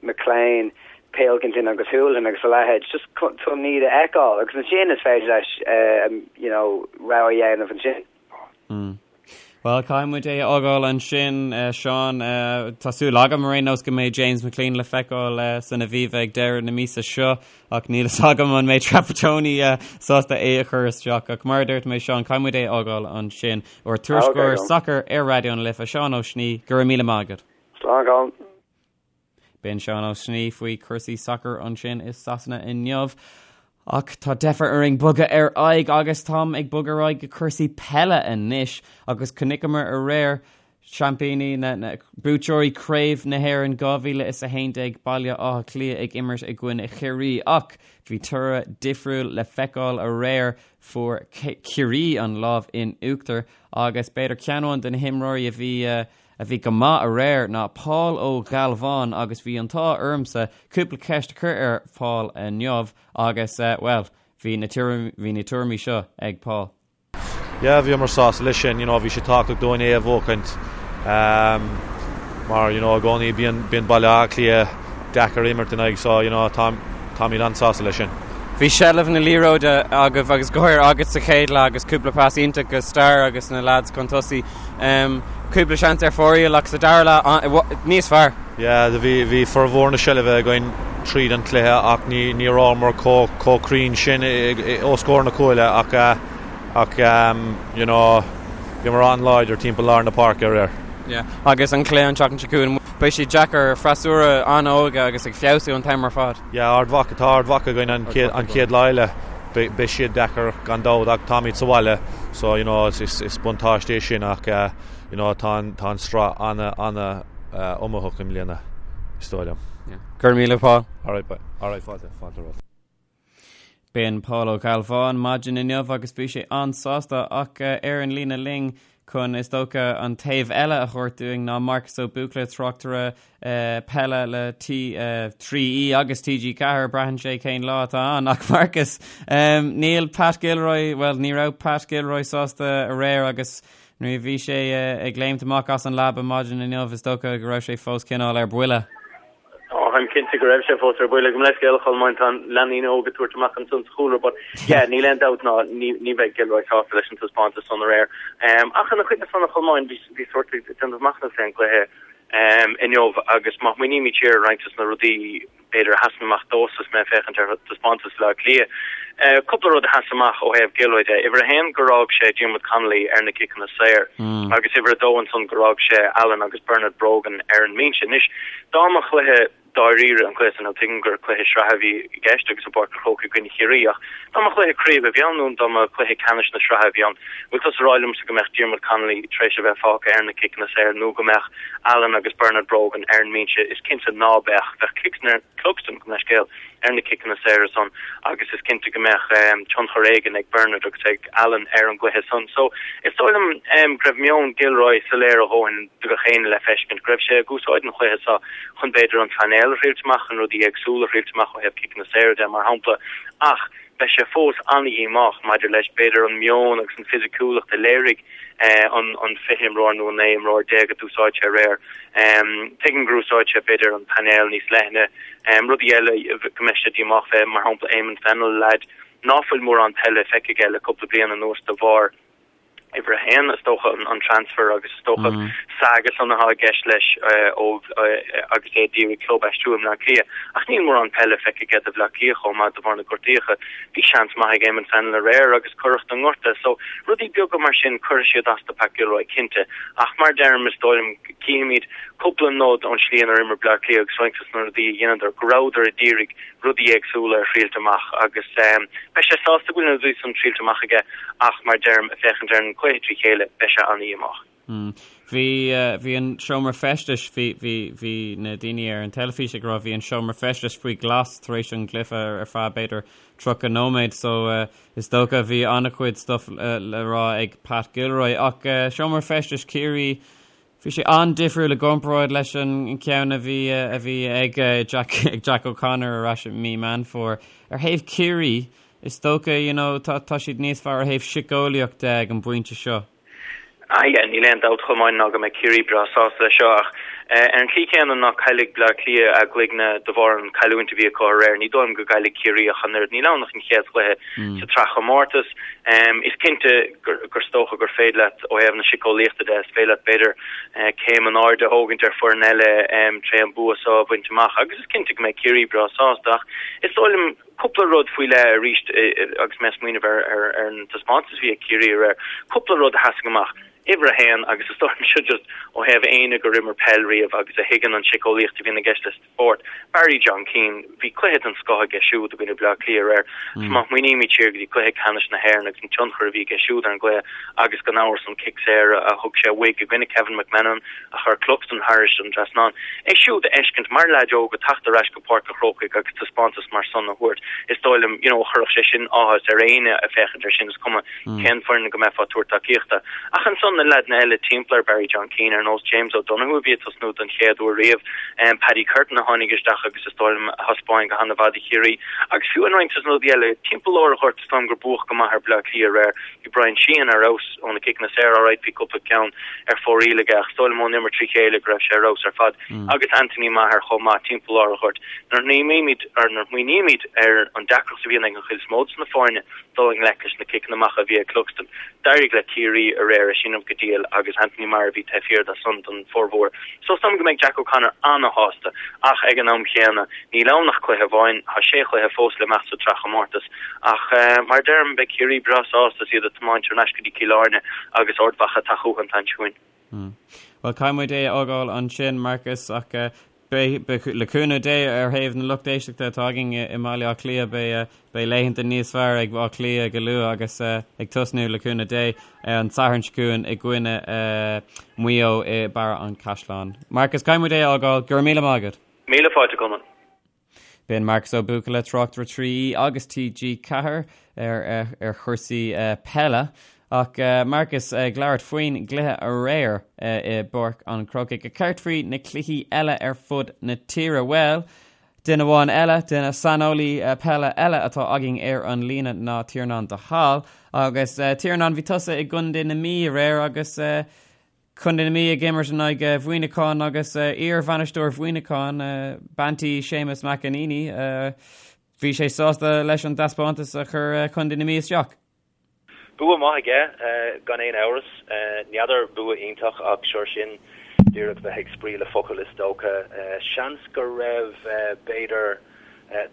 McClean, Pilkington agus Hoolahan agus a leithéid just chun iad a fheiceáil agus ansin is féidir leis you know rogha a dhéanamh ansin. Mm. Bhuel, caithfidh muid é a fhágáil ansin, Seán. Tá súil agam ar aon nós go mbeidh James McClean le feiceáil san Aviva ag deireadh na míosa seo ach níl fhios agam an mbeidh Trapattoni sásta é a chur isteach. Ach mar a dúirt mé, Seán, caithfidh muid é a fhágáil ansin. Ár dtuairisceoir sacair ar Raidió na Life, Seán Ó Snoí, go raibh míle maith agat. Slán, Colm. B'in Seán Ó Snoí faoi chúrsaí sacair ansin i Sasana inniu. Ach tá deifir orainn bogadh ar aghaidh agus táim ag bogadh ar aghaidh go cúrsaí peile anois agus chonaiceamar aréir seaimpíní na, na buaiteoirí Craobh na hÉireann 2011 Baile Átha Cliath ag imirt i gcoinne Chiarraí ach bhí toradh difriúil le feiceáil aréir fuair Ciarraí an lámh in uachtar agus b'fhéidir ceann amháin de na himreoirí a bhí a bhí go maith aréir ná Paul Ó Gealbháin agus bhí an t-ádh ormsa cúpla ceist a chur ar Paul inniu agus, bhuel, bhí na bhí na tuairimí seo ag Paul. Yeah, bhíomar sásta leis sin, you know, bhí sé tábhachtach dúinn é a bhuachaint mar, you know, i gcónaí bíonn bíonn Baile Átha Cliath deacair imirt in aghaidh so, you know, tá táimid an-sásta leis sin. Bhí seilbh na liathróide agaibh agus go háirithe agat sa chéad leath agus cúpla pas iontach go Star agus na lads chun tosaigh. Cúpla seans ar fóraoil ach sa dara leath níos fearr. Yeah, bhí bhí formhór na seilbhe againn tríd an cluiche ach ní ní rabhamar chomh chomh cruinn sin os comhair na cúile ach ach you know bhíomar an-láidir timpeall lár na páirce aréir. Yeah, agus an cluiche an tseachtain seo chugainn, beidh sé deacair freasúra an-óg agus ag feabhsú an t-am ar fad. Yeah, Ard Mhacha, tá Ard Mhacha againn an chéad an chéad lá eile. Beidh siad deacair gan dabht ach táimid sa bhaile so you know is is buntáiste é sin ach you know tá an tá an sraith ana ana iomaíoch i mbliana is dóigh liom. Yeah. Go raibh míle Paul. Alright bye. Alright fáilte fáilte romhat. B'in Paul Ó Gealbháin maidin inniu agus bhí sé an-sásta ach ar an líne linn chun is dócha an taobh eile a thabhairt dúinn ná Marcus Ó Buachalla tráchtaire peile le T3E agus TG4 braitheann sé cén lá atá ann ach Marcus níl Pat Gilroy well ní raibh Pat Gilroy sásta aréir agus nuair a bhí sé ag léimt amach as an leaba maidin inniu is dócha go raibh sé fós cineál ar buile. Ó, táim cinnte go raibh sé fós ar buile. Gabh mo leithscéal, a Cholmáin, tá leanaí óga ag tabhairt amach ansan sa chúlra, but yeah, níl aon dabht ná ní, ní bheidh Gilroy sásta leis an taispeántas san aréir. Um, ach ina choinne san, a Cholmáin, bhí, bhí sórt ag déanamh machnamh fén gcluiche um, inniu agus má smaoinímid siar ar roinnt dos na rudaí b'fhéidir a sheasann amach domhsa is mé ag féachaint ar taispeántas Bhaile Átha Cliath, uh, cúpla rud a sheas amach ó thaobh Gilroy de. Uimhir a haon gur fhág sé Diarmuid Connolly ar na ciceanna saor agus uimhir a dó ansan gur fhág sé Allen agus Bernard Brogan ar an mbinse. Anois, dá mba chluiche dáiríre an cluiche san, tuigim gur cluiche sraithe a bhí i gceist agus i bPáirc an Chrócaigh i gcoinne Chiarraí ach dá mba chluiche craoibhe a bhí ann nó dá mba chluiche ceannais na sraithe a bhí ann, bhfuil tusa ag rá liomsa go mbeadh Diarmuid Connolly tar éis a bheith fágtha ar na ciceanna saor nó go mbeadh Allen agus Bernard Brogan ar an mbinse? Is cinnte ná beadh. Bheadh Cluxton, gabh mo leithscéal, ar na ciceanna saora san agus is cinnte go mbeadh tionchar éigin ag Bernard agus ag Allen ar an gcluiche san. So is dóigh liom go raibh meon Gilroy soiléir a dhóthain do gach éinne le feiscint, go raibh sé ag úsáid an chluiche seo chun b'fhéidir an painéal a thriailt amach, chun rudaí éagsúla a thriailt amach ó thaobh ciceanna saora de mar shampla ach beidh sé fós an-dhíomách maidir leis b'fhéidir an meon agus an fisiciúlacht a léirigh an 20 imreoir nó an 19 imreoir a d'úsáid sé aréir. Tuigim gur úsáid sé b'fhéidir an painéal níos leithne. Rudaí eile go mbeidh sé díomách fé, mar shampla Eamon Fennell, leaid ná fuil mórán peile feicthe aige le cúpla bliain anuas de bharr uimhir a haon, is dócha, an transfer agus is dócha an saga san atá i gceist leis ó agus é d'iarraidh club a aistriú i mBleá Cliath. Ach níl mórán peile feicthe aige do Bhleá Cliath chomh maith de bharr na gortaíocha. Bhí seans maith ag Eamon Fennell aréir agus cuireadh don ngorta. So, rudaí beaga mar sin, cuirfidh siad as do Pat Gilroy, cinnte. Ach mar a deirim, is dóigh liom, cífimid cúpla nod ón slí inar imir Bleá Cliath agus roinnt dos na rudaí a dheineadar, go rabhadar a d'iarraidh rudaí éagsúla a thriailt amach agus beidh sé sásta go bhfuil na rudaí san triailte amach aige ach mar a deirim, ag féachaint ar an gcluiche trí chéile, beidh sé an-dhíomách. Bhí, bhí an seomra feistis, bhí, bhí, bhí na daoine ar an teilifís ag rá bhí an seomra feistis faoi ghlas tar éis an gcluiche ar feadh b'fhéidir 30 nóiméad so is dócha bhí an-chuid stuff le rá ag Pat Gilroy ach seomra feistis Chiarraí Bhí sé an-difriúil i gcomparáid leis an ceann a bhí a bhí ag Jack ag Jack O'Connor ar ais i mí Meán Fómhair. Ar thaobh Chiarraí, is dócha, you know, tá tá siad níos fearr ó thaobh Ar an tslí chéanna ná caillfidh Bleá Cliath a gcloigne de bharr an chailliúint a bhí acu aréir, ní dóigh liom go gcaillfidh Ciarraí ach an oiread. Níl ann ach an chéad chluiche sa tsraithchomórtas. Is cinnte gur is dócha gur féidir leat, ó thaobh na síceolaíochta de, is féidir leat b'fhéidir céim in airde a thógaint ar foireann eile tré an bua seo a bhaint amach agus is cinnte go mbeidh Ciarraí breá sásta ach is dóigh liom cúpla rud faoi leith arís agus mé ag smaoineamh ar an taispeántas a bhí ag Ciarraí aréir, cúpla rud a sheasaigh amach. Uimhir a haon, agus is dóigh liom seo just ó thaobh éinne gur imir peil riamh agus a thuigeann an tsiceolaíocht a bhíonn i gceist le spórt, Barry John Keane, bhí cluiche den scoth aige siúd i gcoinne Bleá Cliath aréir. Is má smaoinímid siar go dtí cluiche ceannais na hÉireann agus an tionchar a bhí aige siúd ar an gcluiche agus gan amhras an cic saor a thug sé uaidh i gcoinne Kevin McManamon a chuir Cluxton thairis an trasnán. É siúd a fheiscint mar leaid óg ag teacht ar ais go Páirc an Chrócaigh agus taispeántas mar san a thabhairt, is dóigh liom, you know, chuirfeadh sé sin áthas ar éinne ag féachaint air sin, is cuma cén foireann go mbeifeá ag tabhairt tacaíochta. Ach ansan na leaideanna eile timpeall ar Barry John Keane, ar nós James O'Donoghue a bhí ag tosnú don chéad uair riamh, Paddy Curtin a tháinig isteach agus is dóigh liom a thaispeáin go han-mhaith do Chiarraí. Agus fiú in roinnt dos na rudaí eile, timpeall lár an ghoirt is dóigh liom gur buadh go maith ar Bleá Cliath aréir. Bhí Brian Sheehan ar fheabhas ó na ciceanna saora, alright bhí cúpla ceann ar fóraoil aige ach is dóigh liom ón imirt trí chéile go raibh sé ar fheabhas ar fad. Agus Anthony Maher chomh maith timpeall lár an ghoirt. Nuair a smaoinímid ar an deacracht a bhíonn ag an chuid is mó dos na foirne, dul i ngleic leis na ciceanna amach a bhí ag Cluxton. D'éirigh le Ciarraí aréir é sin go diail agus Anthony Maher a bhí taobh thiar de san don formhór. So is dóigh liom go mbeidh Jack O'Connor ana-shásta ach ag an am chéanna níl ann ach cluiche amháin, tá sé chluiche fós le imeacht sa tsraithchomórtas. Ach mar a deirim, beidh Ciarraí breá sásta is iad ag tiomáint thar n-ais go dtí Cill Airne agus Ard Mhacha ag teacht chucu an tseachtain seo chugainn. Bhuel, caithfidh muid é a fhágáil ansin, Marcus, ach beidh, le cúnamh Dé, ar thaobh na lucht éisteachta atá againn i mBaile Átha Cliath, beidh, beidh laethanta níos fearr ag Áth Cliath go luath agus ag tosnú, le cúnamh Dé, an Satharn seo chugainn i gcoinne Mhaigh Eo i mBarra an Chaisleáin. Marcus, caithfidh muid é a fhágáil. Go raibh míle maith agat. Míle fáilte, a Cholmáin. B'in Marcus Ó Buachalla, tráchtaire 3 agus TG4 ar ar chúrsaí peile. Ach Marcus ag labhairt faoin gcluiche aréir i bPáirc an Chrócaigh. Céard faoi na cluichí eile ar fud na tíre? Bhuel, duine amháin eile, duine saineolaí peile eile atá againn ar an líne ná Tiarnán de Hál. Agus Tiarnán, bhí tusa i gContae na Mí aréir agus Contae na Mí ag imirt in aghaidh Mhuineacháin agus iar-bhainisteoir Mhuineacháin, bean tí Séamus McEneaney, bhí sé sásta leis an dtaispeántas a chuir Contae na Mí isteach. Bua maith aige, gan aon amhras. N'fheadar bua iontach ach sure sin díreach bheith ag spraoi le focail is dócha. Seans go raibh b'fhéidir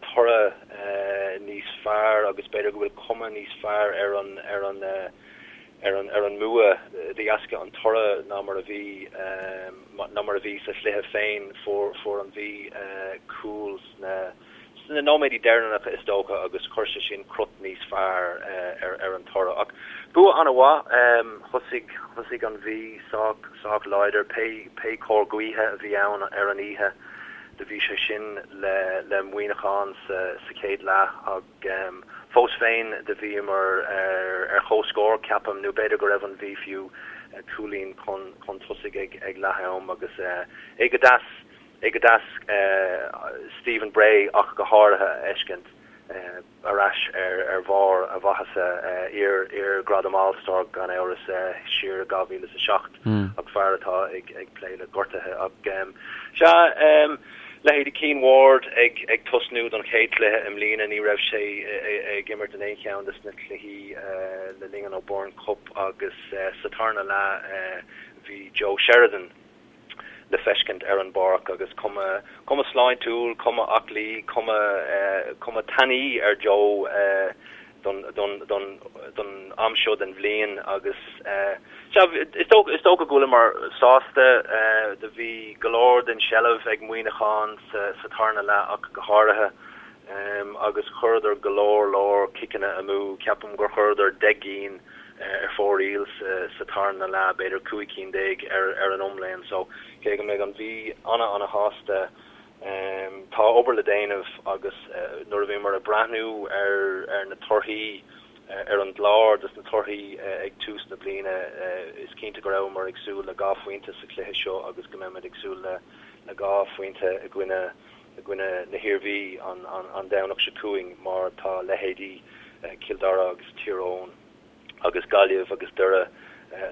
toradh níos fearr agus b'fhéidir go bhfuil cuma níos fearr ar an ar an ar an ar an mbua de dheasca an toradh ná mar a bhí ná mar a bhí sa chluiche féin. Fuair fuair an Mhí cúl sna sna nóiméidí deireanacha is dócha agus chuir sé sin crot níos fearr ar ar an toradh. Ach bua an-mhaith. Thosaigh thosaigh an Mhí sách sách láidir pé pé cóir gaoithe a bhí ann ar an oíche do bhí sé sin le le Muineachán sa sa chéad leath ach Fós féin, do bhíomar ar comhscór, ceapaim, nó b'fhéidir go raibh an Mhí fiú cúilín chun tosaigh ag leath-am agus é go deas, é go deas Stephen Bray ach go háirithe a fheiscint ar ais ar bharr a mhaitheasa, iar-ghradam All-Star gan amhras siar i 2007 ach fear atá ag plé le gortuithe ach sea, Leithéidí Cian Ward ag tosnú don chéad chluiche i mbliana, ní raibh sé ag imirt in aon cheann de na cluichí le linn an O'Byrne Cup agus sa tarna leath bhí Joe Sheridan le feiscint ar an bpáirc agus cuma cuma sláintiúil, cuma aclaí, cuma cuma tanaí ar Joe don don don don am seo den bhliain agus sea, is dócha is dócha go bhfuileamar sásta. Do bhí go leor den seilbh ag Muineachán sa sa tarna leath ach go háirithe agus chuireadar go leor leor ciceanna amú. Ceapaim gur chuireadar 10 gcinn ar fóraoil sa sa tarna leath, b'fhéidir 15 cinn ar ar an iomlán. So cé go mbeidh an Mhí ana ana shásta Tá obair le déanamh agus nuair a bhíomar ag breathnú ar na torthaí, ar an gclár dos na torthaí ag tús na bliana, is cinnte go rabhamar ag súil le 2 phointe sa chluiche seo agus go mbeimid ag súil le 2 phointe i gcoinne i gcoinne na hIarmhí an Domhnach seo chugainn mar tá leithéidí Cill Dara agus Tír Eoghain agus Gaillimh agus Doire.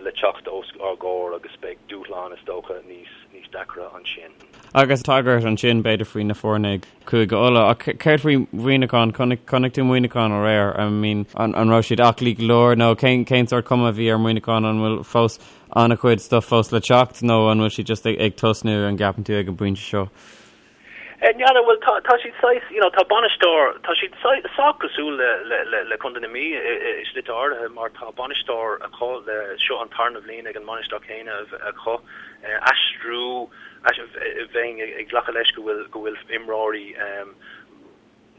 le teacht os ár gcomhair agus beidh dúshlán is dócha níos níos deacra ansin. Agus tagairt ansin b'fhéidir faoi na foirne i gCúige Uladh ach céard faoi Mhuineachán? Chonaic chonaic tú Muineachán aréir? I mean an an raibh siad aclaí go leor nó cén cén sórt cuma a bhí ar Mhuineachán? An bhfuil fós an-chuid stuff fós le teacht nó an bhfuil siad just ag ag tosnú an gceapann tú ag an bpointe seo? N'fheadar, bhuel tá tá siad saghas, you know, tá bainisteoir, tá siad sách cosúil le le le le Contae na Mí i i i slite áirithe mar tá bainisteoir acu le seo an tarna bhliain ag an mbainisteoir céanna acu. Aistriú, bheinn ag glacadh leis go bhfuil go bhfuil imreoirí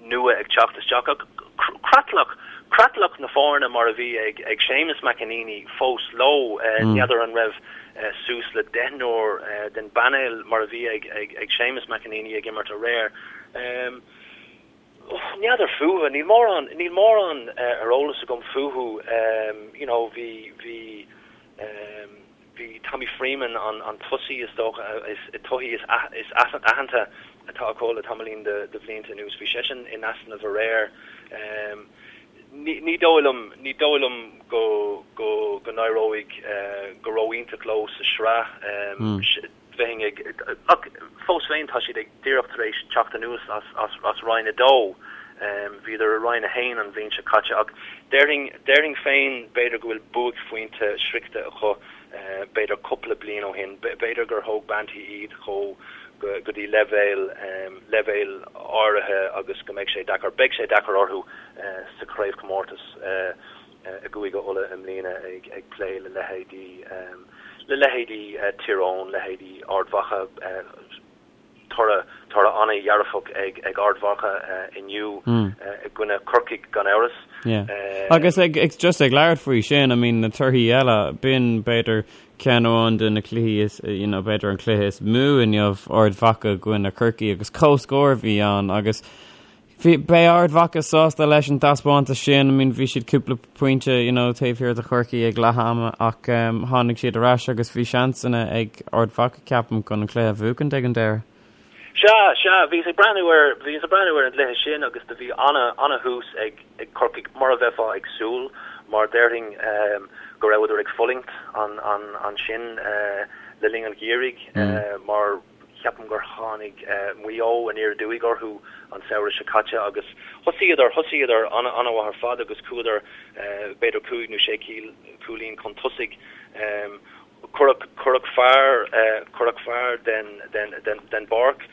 nua ag teacht isteach ach creatlach, creatlach na foirne mar a bhí ag ag Séamus McEneaney fós leo. N'fheadar an raibh suas le deichniúr den bpainéal mar a bhí ag ag ag Séamus McEneaney ag imirt aréir. N'fheadar fúthu, níl mórán, níl mórán ar eolas agam fúthu. You know, bhí, bhí, Bhí Tommy Freeman, an tosaí is dócha, is tosaí is aitheanta atá acu le tamaillín de bhlianta anuas, bhí seisean in easnamh aréir. Ní dóigh liom, ní dóigh liom go go go n-éireoidh go ró-iontach leo sa sraith. Bheinn ag, ach fós féin tá siad ag díreach tar éis teacht anuas as as as Roinn 2. Bhíodar i Roinn 1 an bhliain seo caite ach déarfainn, déarfainn féin b'fhéidir go bhfuil buaicphointe sroichte acu b'fhéidir cúpla bliain ó shin. B'fhéidir gur thóg Banty iad chomh go go dtí leibhéal, leibhéal áirithe agus go mbeidh sé deacair, beidh sé deacair orthu sa chraobhchomórtas. i gCúige Uladh i mbliana ag plé le leithéidí le leithéidí Tír Eoghain, leithéidí Ard Mhacha, toradh toradh an-dhearfach ag ag Ard Mhacha inniu i gcoinne Corcaigh gan amhras. Yeah. Agus ag ag just ag labhairt faoi sin, I mean na torthaí eile, b'in b'fhéidir ceann amháin de na cluichí is you know b'fhéidir an cluiche is mó inniu Ard Mhacha i gcoinne Corcaigh agus comhscór a bhí ann agus Bhí, beidh Ard Mhacha sásta leis an taispeántas sin, I mean bhí siad cúpla pointe, you know, taobh thiar de Chorcaigh ag leath ama ach um, tháinig siad ar ais agus bhí seansanna ag Ard Mhacha ceapaim chun an cluiche a bhuachaint ag an deireadh. Sea, sea, bhíos ag breathnú ar, bhíos ag breathnú ar an gcluiche sin agus do bhí ana, ana thús ag, ag Corcaigh mar a bheifeá ag súil mar déarfainn um, go rabhadar ag fulaingt an, an, ansin uh, le linn an gheimhridh uh, mar Ceapaim gur tháinig Maigh Eo aniar aduaidh orthu an samhradh seo caite agus thosaíodar, thosaíodar an-mhaith ar fad agus chuadar b'fhéidir cúig nó sé cúilín chun tosaigh. Cuireadh, cuireadh fear, cuireadh fear den, den, den, den bpáirc.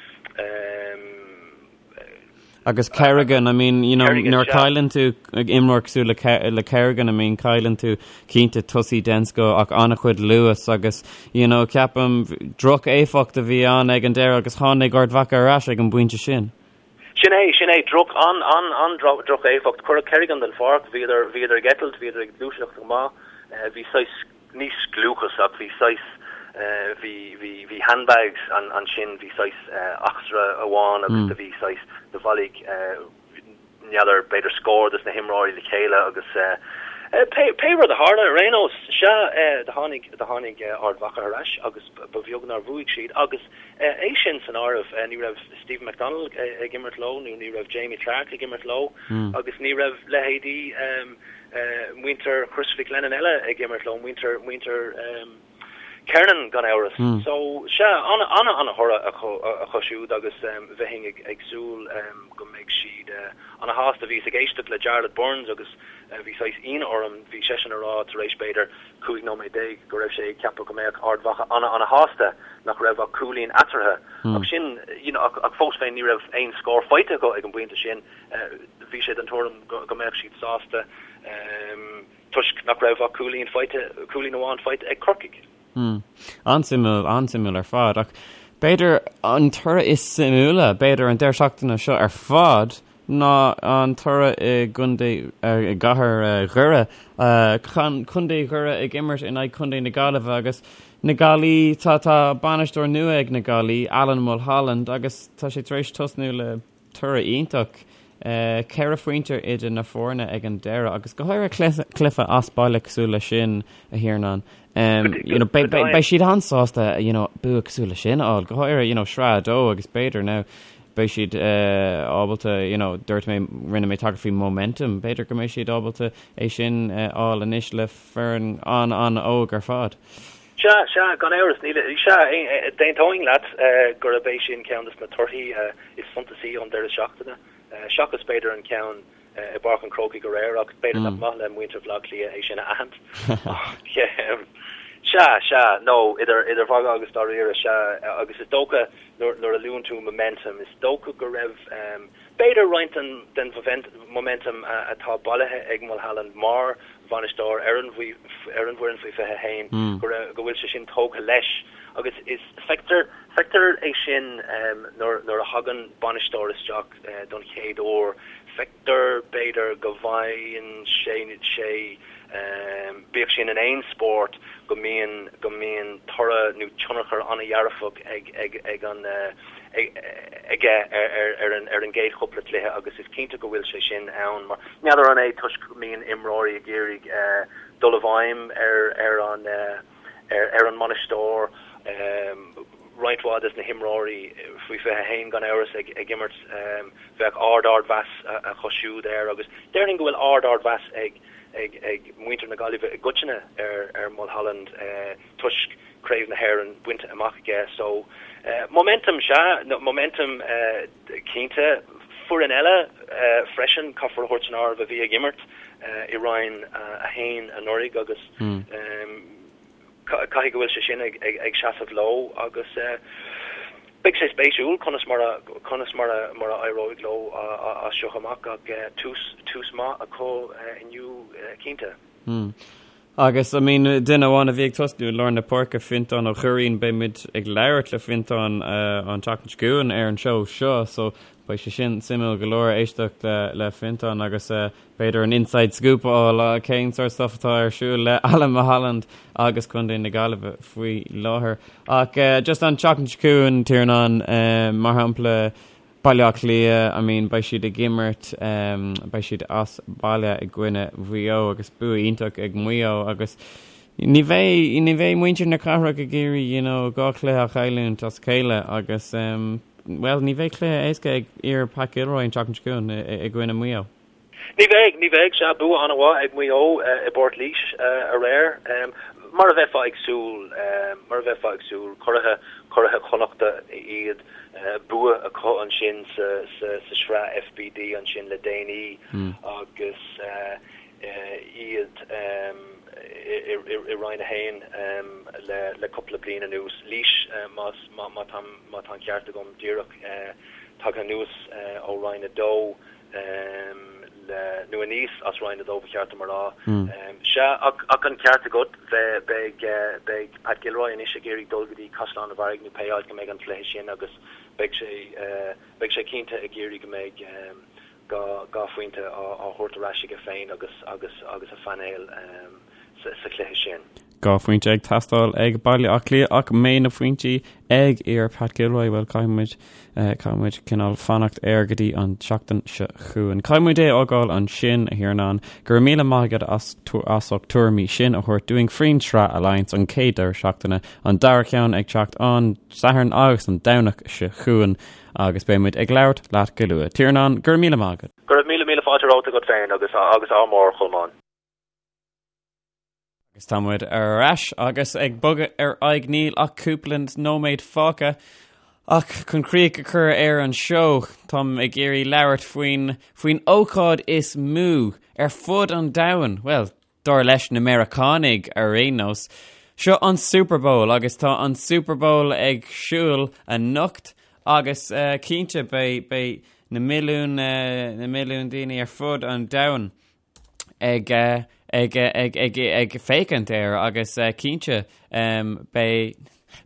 Agus Kerrigan, I mean, you know, nuair a chailleann tú imreoir cosúil le le Kerrigan, I mean, cailleann tú cinnte tosaí den scoth ach an-chuid luas agus, you know, ceapaim droch-éifeacht a bhí ann ag an deireadh agus tháinig Ard Mhacha ar ais ag an bpointe sin. Sin é, sin é, droch, an, an, an droch-éifeacht. Cuireadh Kerrigan den pháirc, bhíodar, bhíodar ag eitilt, bhíodar ag gluaiseacht go maith, bhí saghas, ní scliúchas ach bhí saghas, bhí, bhí, bhí handbags ansin, bhí saghas eachtra amháin agus do bhí saghas, do bhailigh, n'fheadar, b'fhéidir scór des na himreoirí le chéile agus pé, pé rud a tharla ar aon nós, sea, do tháinig, do tháinig Ard Mhacha ar ais agus ba bheag nár bhuaigh siad agus é sin san áireamh, ní raibh Stephen McDonald ag imirt leo nó ní raibh Jamie Clarke ag imirt leo agus ní raibh leithéidí muintir Chris Mhic Lennon eile ag imirt leo, muintir, muintir Kernan gan amhras. So, sea, ana, ana, ana thoradh acu, acu siúd agus bheinn ag, ag súil go mbeidh siad ana shásta. Bhíos ag éisteacht le Jarlath Burns agus bhí saghas ionadh orm, bhí seisean a rá tar éis b'fhéidir 15 nóiméad go raibh sé ag ceapadh go mbeadh Ard Mhacha ana, ana shásta nach raibh ach cúilín eatarthu. Ach sin, you know, ach, ach fós féin ní raibh aon scór faighte acu ag an bpointe sin. Bhí sé den tuairim go mbeadh siad sásta toisc nach raibh ach cúilín faighte, cúilín amháin faighte ag Corcaigh. An-suimiúil, an-suimiúil ar fad. Ach b'fhéidir an toradh is suimiúla, b'fhéidir an deireadh seachtaine seo ar fad, ná an toradh i gcontae, i gcathair Dhoire. Contae Dhoire ag imirt in aghaidh Contae na Gaillimhe agus na Gaillí, tá, tá bainisteoir nua ag na Gaillí, Alan Mulholland, agus tá sé tar éis tosnú le Toradh iontach. 4 phointe idir na foirne ag an deireadh agus go háirithe cluiche as baile cosúil leis sin, a Thiarnáin. You know, beidh siad an-sásta you know, bua cosúil leis sin a fháil, go háirithe you know, sraith 2 agus b'fhéidir now. beidh siad ábalta, you know, dúirt mé, rinne mé tagairt faoi momentum, b'fhéidir go mbeidh siad ábalta é sin a fháil anois le foireann an-an-óg ar fad. Sea, sea, gan amhras, níl, sea, d'aontóinn leat gurb é sin ceann de na torthaí is suntasaí ón deireadh seachtaine, seachas b'fhéidir an ceann i bPáirc an Chrócaigh aréir, ach b'fhéidir nach maith le muintir Bhaile Átha Cliath é sin a aithint. Ach, sea, sea, nó idir, idir mhagadh agus dáiríre, sea, agus is dócha nuair, nuair a luann tú momentum, is dócha go raibh, B'fhéidir roinnt den momentum atá bailithe ag Mulholland mar bhainisteoir ar an bhfoireann faoi 21 go raibh go bhfuil sé sin tógtha leis agus is feictear feictear é sin nuair nuair a thagann bainisteoir isteach don chéad uair feictear b'fhéidir go bhfaigheann sé sé bíodh sin in aon spórt go mbíonn go mbíonn toradh nó tionchar an-dhearfach ag ag ag an aige ar an gcéad chúpla cluiche agus is cinnte go bhfuil sé sin ann mar n'fheadar an é toisc go mbíonn imreoirí ag iarraidh dul i bhfeidhm ar an ar an mbainisteoir. Roinnt mhaith des na himreoirí faoi 21 gan amhras ag imirt bheadh ard ardmheas acu siúd air agus déarfainn go bhfuil ard ardmheas ag ag muintir na Gaillimhe i gcoitinne ar Mulholland toisc Craobh na hÉireann bainte amach aige so momentum sea, momentum cinnte. Foireann eile freisin, caithfear a thabhairt san áireamh, a bhí ag imirt i Roinn 1 anuraidh agus caithfidh go bhfuil sé sin ag seasamh leo agus beidh sé spéisiúil conas mar a conas mar a mar a éireoidh leo as seo amach ach tús tús maith acu inniu cinnte. Agus, I mean, duine amháin a bhí ag tosnú i lár na páirce, Fintán Ó Curraoin, beidh muid ag labhairt le Fintán an tseachtain seo chugainn ar an seó seo, so beidh sé sin suimiúil go leor éisteacht le le Fintán agus b'fhéidir an inside scoop a fháil cén sórt stuff atá ar siúl le Alan Mulholland agus Contae na Gaillimhe faoi láthair. Ach just an tseachtain seo chugainn, Tiarnán, mar shampla, Baile Átha Cliath, I mean beidh siad ag imirt, beidh siad as baile i gcoinne Mhaigh Eo agus bua iontach ag Maigh Eo agus ní bheidh, ní bheidh muintir na cathrach ag iarraidh you know dhá chluiche a chailliúint as a chéile agus bhuel ní bheidh cluiche éasca ag fhir Pat Gilroy an tseachtain seo chugainn i gcoinne Mhaigh Eo. Ní bheidh, ní bheidh. Sea, bua an-mhaith ag Maigh Eo i bPort Laoise aréir. Mar a bheifeá ag súil, mar a bheifeá ag súil, curaithe, curaithe Chonnachta iad, bua acu ansin sa, sa, sa sraith FBD ansin le déanaí agus iad i, i, i Roinn 1 le, le cúpla bliain anuas. Laois, más, má, má tá, má tá an ceart agam, díreach tagtha anuas ó Roinn 2. le, nó aníos as Roinn 2 ba cheart dom a rá. Sea, ach an ceart agat, beidh, beidh Pat Gilroy anois ag iarraidh dul go dtí Caisleán an Bharraigh nó pé áit go mbeidh an cluiche sin agus beidh sé, beidh sé cinnte ag iarraidh go mbeidh dhá phointe á thabhairt ar ais aige féin agus, agus, agus a phainéal sa chluiche sin. Dhá phointe ag teastáil ag Baile Átha Cliath ach an mbeidh na pointí ag fhir Pat Gilroy, bhuel caithfidh muid, caithfidh muid cineál fanacht air go dtí an tseachtain seo chugainn. Caithfidh muid é a fhágáil ansin, a Thiarnáin. Go raibh míle maith agat as as ucht tuairimí sin a thabhairt dúinn faoin tsraith Alliance an chéad deireadh seachtaine, an dara ceann ag teacht an Satharn agus an Domhnach seo chugainn agus beidh muid ag labhairt leat go luath. Tiarnán, go raibh míle maith agat. Go raibh míle míle fáilte romhat agat féin agus agus ádh mór, a Cholmáin. Agus tá muid ar ais agus ag bogadh ar aghaidh níl ach cúpla nóiméad fágtha. Ach chun críoch a chur ar an seó, táim ag iarraidh labhairt faoin faoin ócáid is mó ar fud an domhain, bhuel, dar leis na Meiriceánaigh ar aon nós. Seo an Super Bowl agus tá an Super Bowl ag siúl anocht agus uh, cinnte beidh beidh na milliún uh, na milliún daoine ar fud an domhain ag ag ag ag ag féachaint air agus cinnte beidh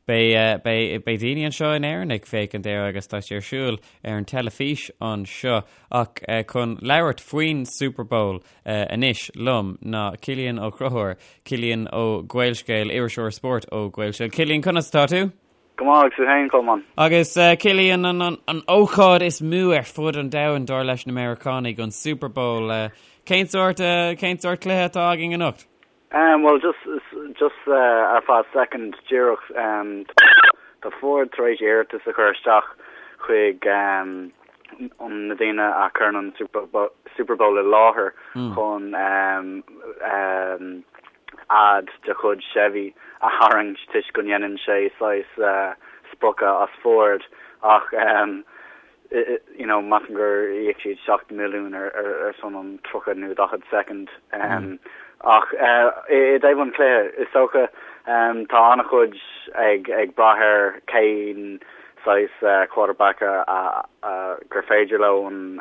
beidh beidh beidh daoine anseo in Éirinn ag féachaint air agus tá sé ar siúl ar an teilifís anseo ach chun labhairt faoin Super Bowl anois liom ná Cillian Ó Conchúir, Cillian ó Gaelscéal, iriseoir spóirt ó Gaelscéal. Cillian, conas atá tú? Go maith, agus tú féin, Colmán? Agus Cillian, an, an ócáid is mó ar fud an domhain, dar leis na Meiriceánaigh, an Super Bowl. Cén sórt, cén sórt cluiche atá againn anocht? Um, well, just, just uh, ar feadh second díreach, um, tá Ford tar éis iarratas a chur isteach. chuig na daoine a chuireann an Super Bowl i láthair chun ad de chuid Chevy a tharraingt toisc go ndéanann sé saghas spochadh as Ford ach you know measaim gur íoc siad 7 milliún ar son an 30 nó 40 soicind. Ach i dtaobh an chluiche, is dócha tá an-chuid ag brath ar cén saghas quarterback a gur féidir leo an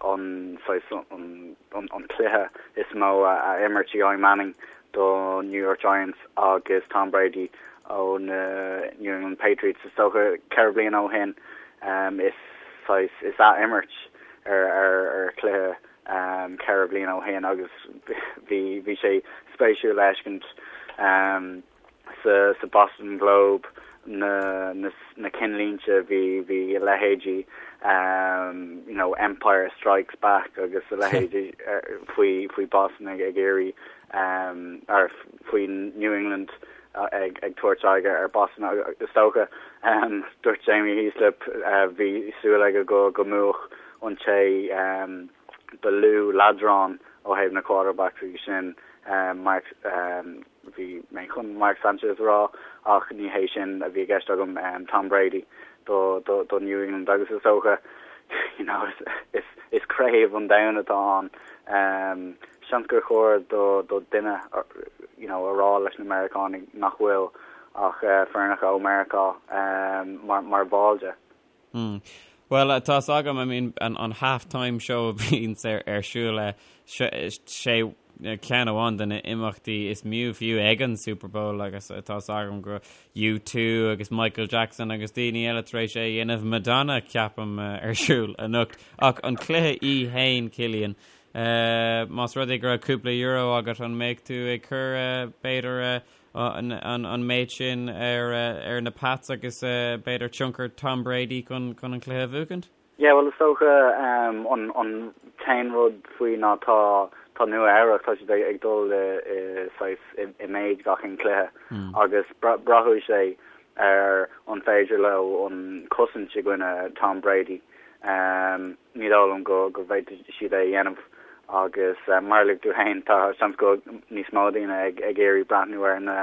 an saghas an cluiche is mó a imirt Eli Manning do New York Giants agus Tom Brady ó na New England Patriots. Is dócha 4 bliana ó shin is saghas is ath-imirt ar ar chluiche 4 bliana ó shin agus bhí bhí sé spéisiúil le feiscint sa Boston Globe na na cinnlínte bhí bhí a leithéidí you know Empire Strikes Back agus a leithéidí faoi faoi Boston ag ag iarraidh ar faoi New England ag ag tabhairt aghaidh ar Boston is dócha dúirt Jamie Heaslip bhí súil aige go go mbuafadh an té ba lú leadrán ó thaobh na quarterbacks agus sin Mark Bhí mé chun Mark Sanchez a rá ach ní hé sin a bhí i gceist agam, Tom Brady do do New England agus is dócha you know is is craobh an domhain atá ann. Seans gur chóir do do duine you know a rá leis na Meiriceánaigh nach bhfuil ach foirneacha ó Meiriceá mar mar bhall de. Mm. Bhuel, tá's agam, I mean, an, an half-time show a bhíonns ar, ar siúl, eh, sé ceann amháin de na imeachtaí is mó fiú ag an Super Bowl agus tá's agam go U2 agus Michael Jackson agus daoine eile tar éis é a dhéanamh Madonna ceapaim ar siúl anocht. Ach an cluiche í féin, Cillian, eh, más rud é go raibh cúpla euro agat an mbeadh tú ag cur eh, b'fhéidir eh, an méid sin ar na Pats agus b'fhéidir tionchar Tom Brady chun an cluiche a bhuachaint? Yeah, bhuel is dócha an t-aon rud faoi ná tá tá Nua Eabhrac, tá siad ag dul i saghas i méid gach aon cluiche agus braithfidh sé ar an féidir leo an cosaint i gcoinne Tom Brady. Ní dóigh liom go go bhféadfaidh siad é a dhéanamh agus mar a luaigh tú féin tá seans go níos mó daoine ag ag iarraidh breathnú ar na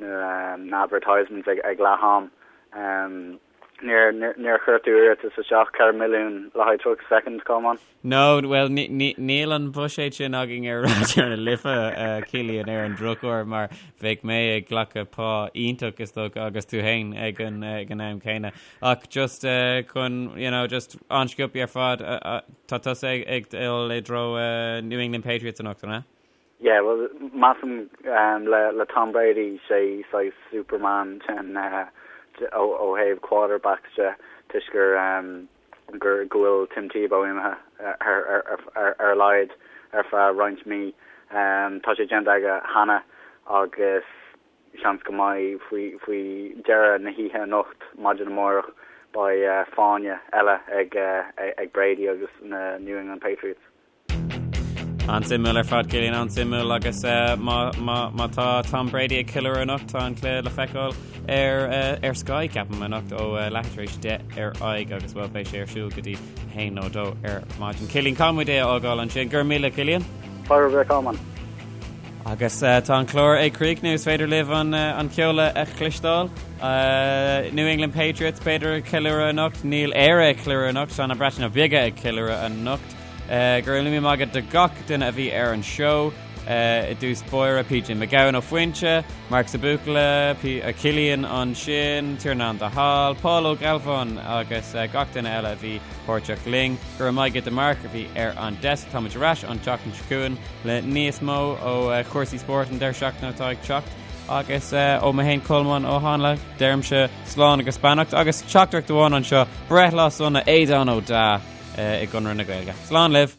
na advertisements ag ag leath am. Níor níor chuir tú iarratas isteach 4 milliún le haghaidh 30 soicind, Colmán? No, bhuel níl an buiséad sin againn ar Raidió na Life, Cillian, ar an drochuair mar bheadh mé ag glacadh pá iontach is dócha agus tú féin ag an ag an am céanna. Ach just chun, you know, just an-sciobtha ar fad, tá tusa ag dul i dtreo New England Patriots anocht, an ea? Yeah, well, measaim le le Tom Brady, sé saghas Superman den ó ó thaobh quarterbacks de toisc gur gur go bhfuil Tim Tebow imithe ar ar ar ar a laghad ar feadh roinnt mí. Tá sé déanta aige cheana agus Seans go mbeidh faoi dheireadh na hoíche anocht, maidin amárach, beidh fáinne eile ag Brady agus na New England Patriots. An-suimiúil ar fad, Cillian, an-suimiúil agus má tá Tom Brady ag ceiliúradh anocht, tá an cluiche le feiceáil ar ar Sky, ceapaim, anocht ó leathuair tar éis 10 ar aghaidh agus bhuel beidh sé ar siúl go dtí 1 nó 2 ar maidin. Cillian, caithfidh muid é a fhágáil ansin. Go raibh míle, Cillian. Fáilte romhat, a Cholmáin. Agus tá an clár ag críochnú, is féidir libh an ceol a chloisteáil. New England Patriots, b'fhéidir ag ceiliúradh anocht. Níl Éire ag ceiliúradh anocht, tá na Breataine Bige ag ceiliúradh anocht. Go raibh míle maith agat do gach duine a bhí ar an seó. I dtús báire, PJ Mac Gabhann ó Foinse, Marc sa Bhuachalla, Cillian ansin, Tiarnán de Hál, Paul Ó Gealbháin agus gach duine eile a bhí páirteach linn. Go raibh maith agat do Mark a bhí ar an desk. Táimid ar ais an tseachtain seo chugainn le níos mó ó chúrsaí spóirt an deireadh seachtaine atá ag teacht. Agus ó mé féin Colmán Ó Háinle, deirimse slán agus beannacht agus teachtaireacht amháin anseo, breithlá sona Aodán Ó Deá i gConradh na Gaeilge. Slán libh!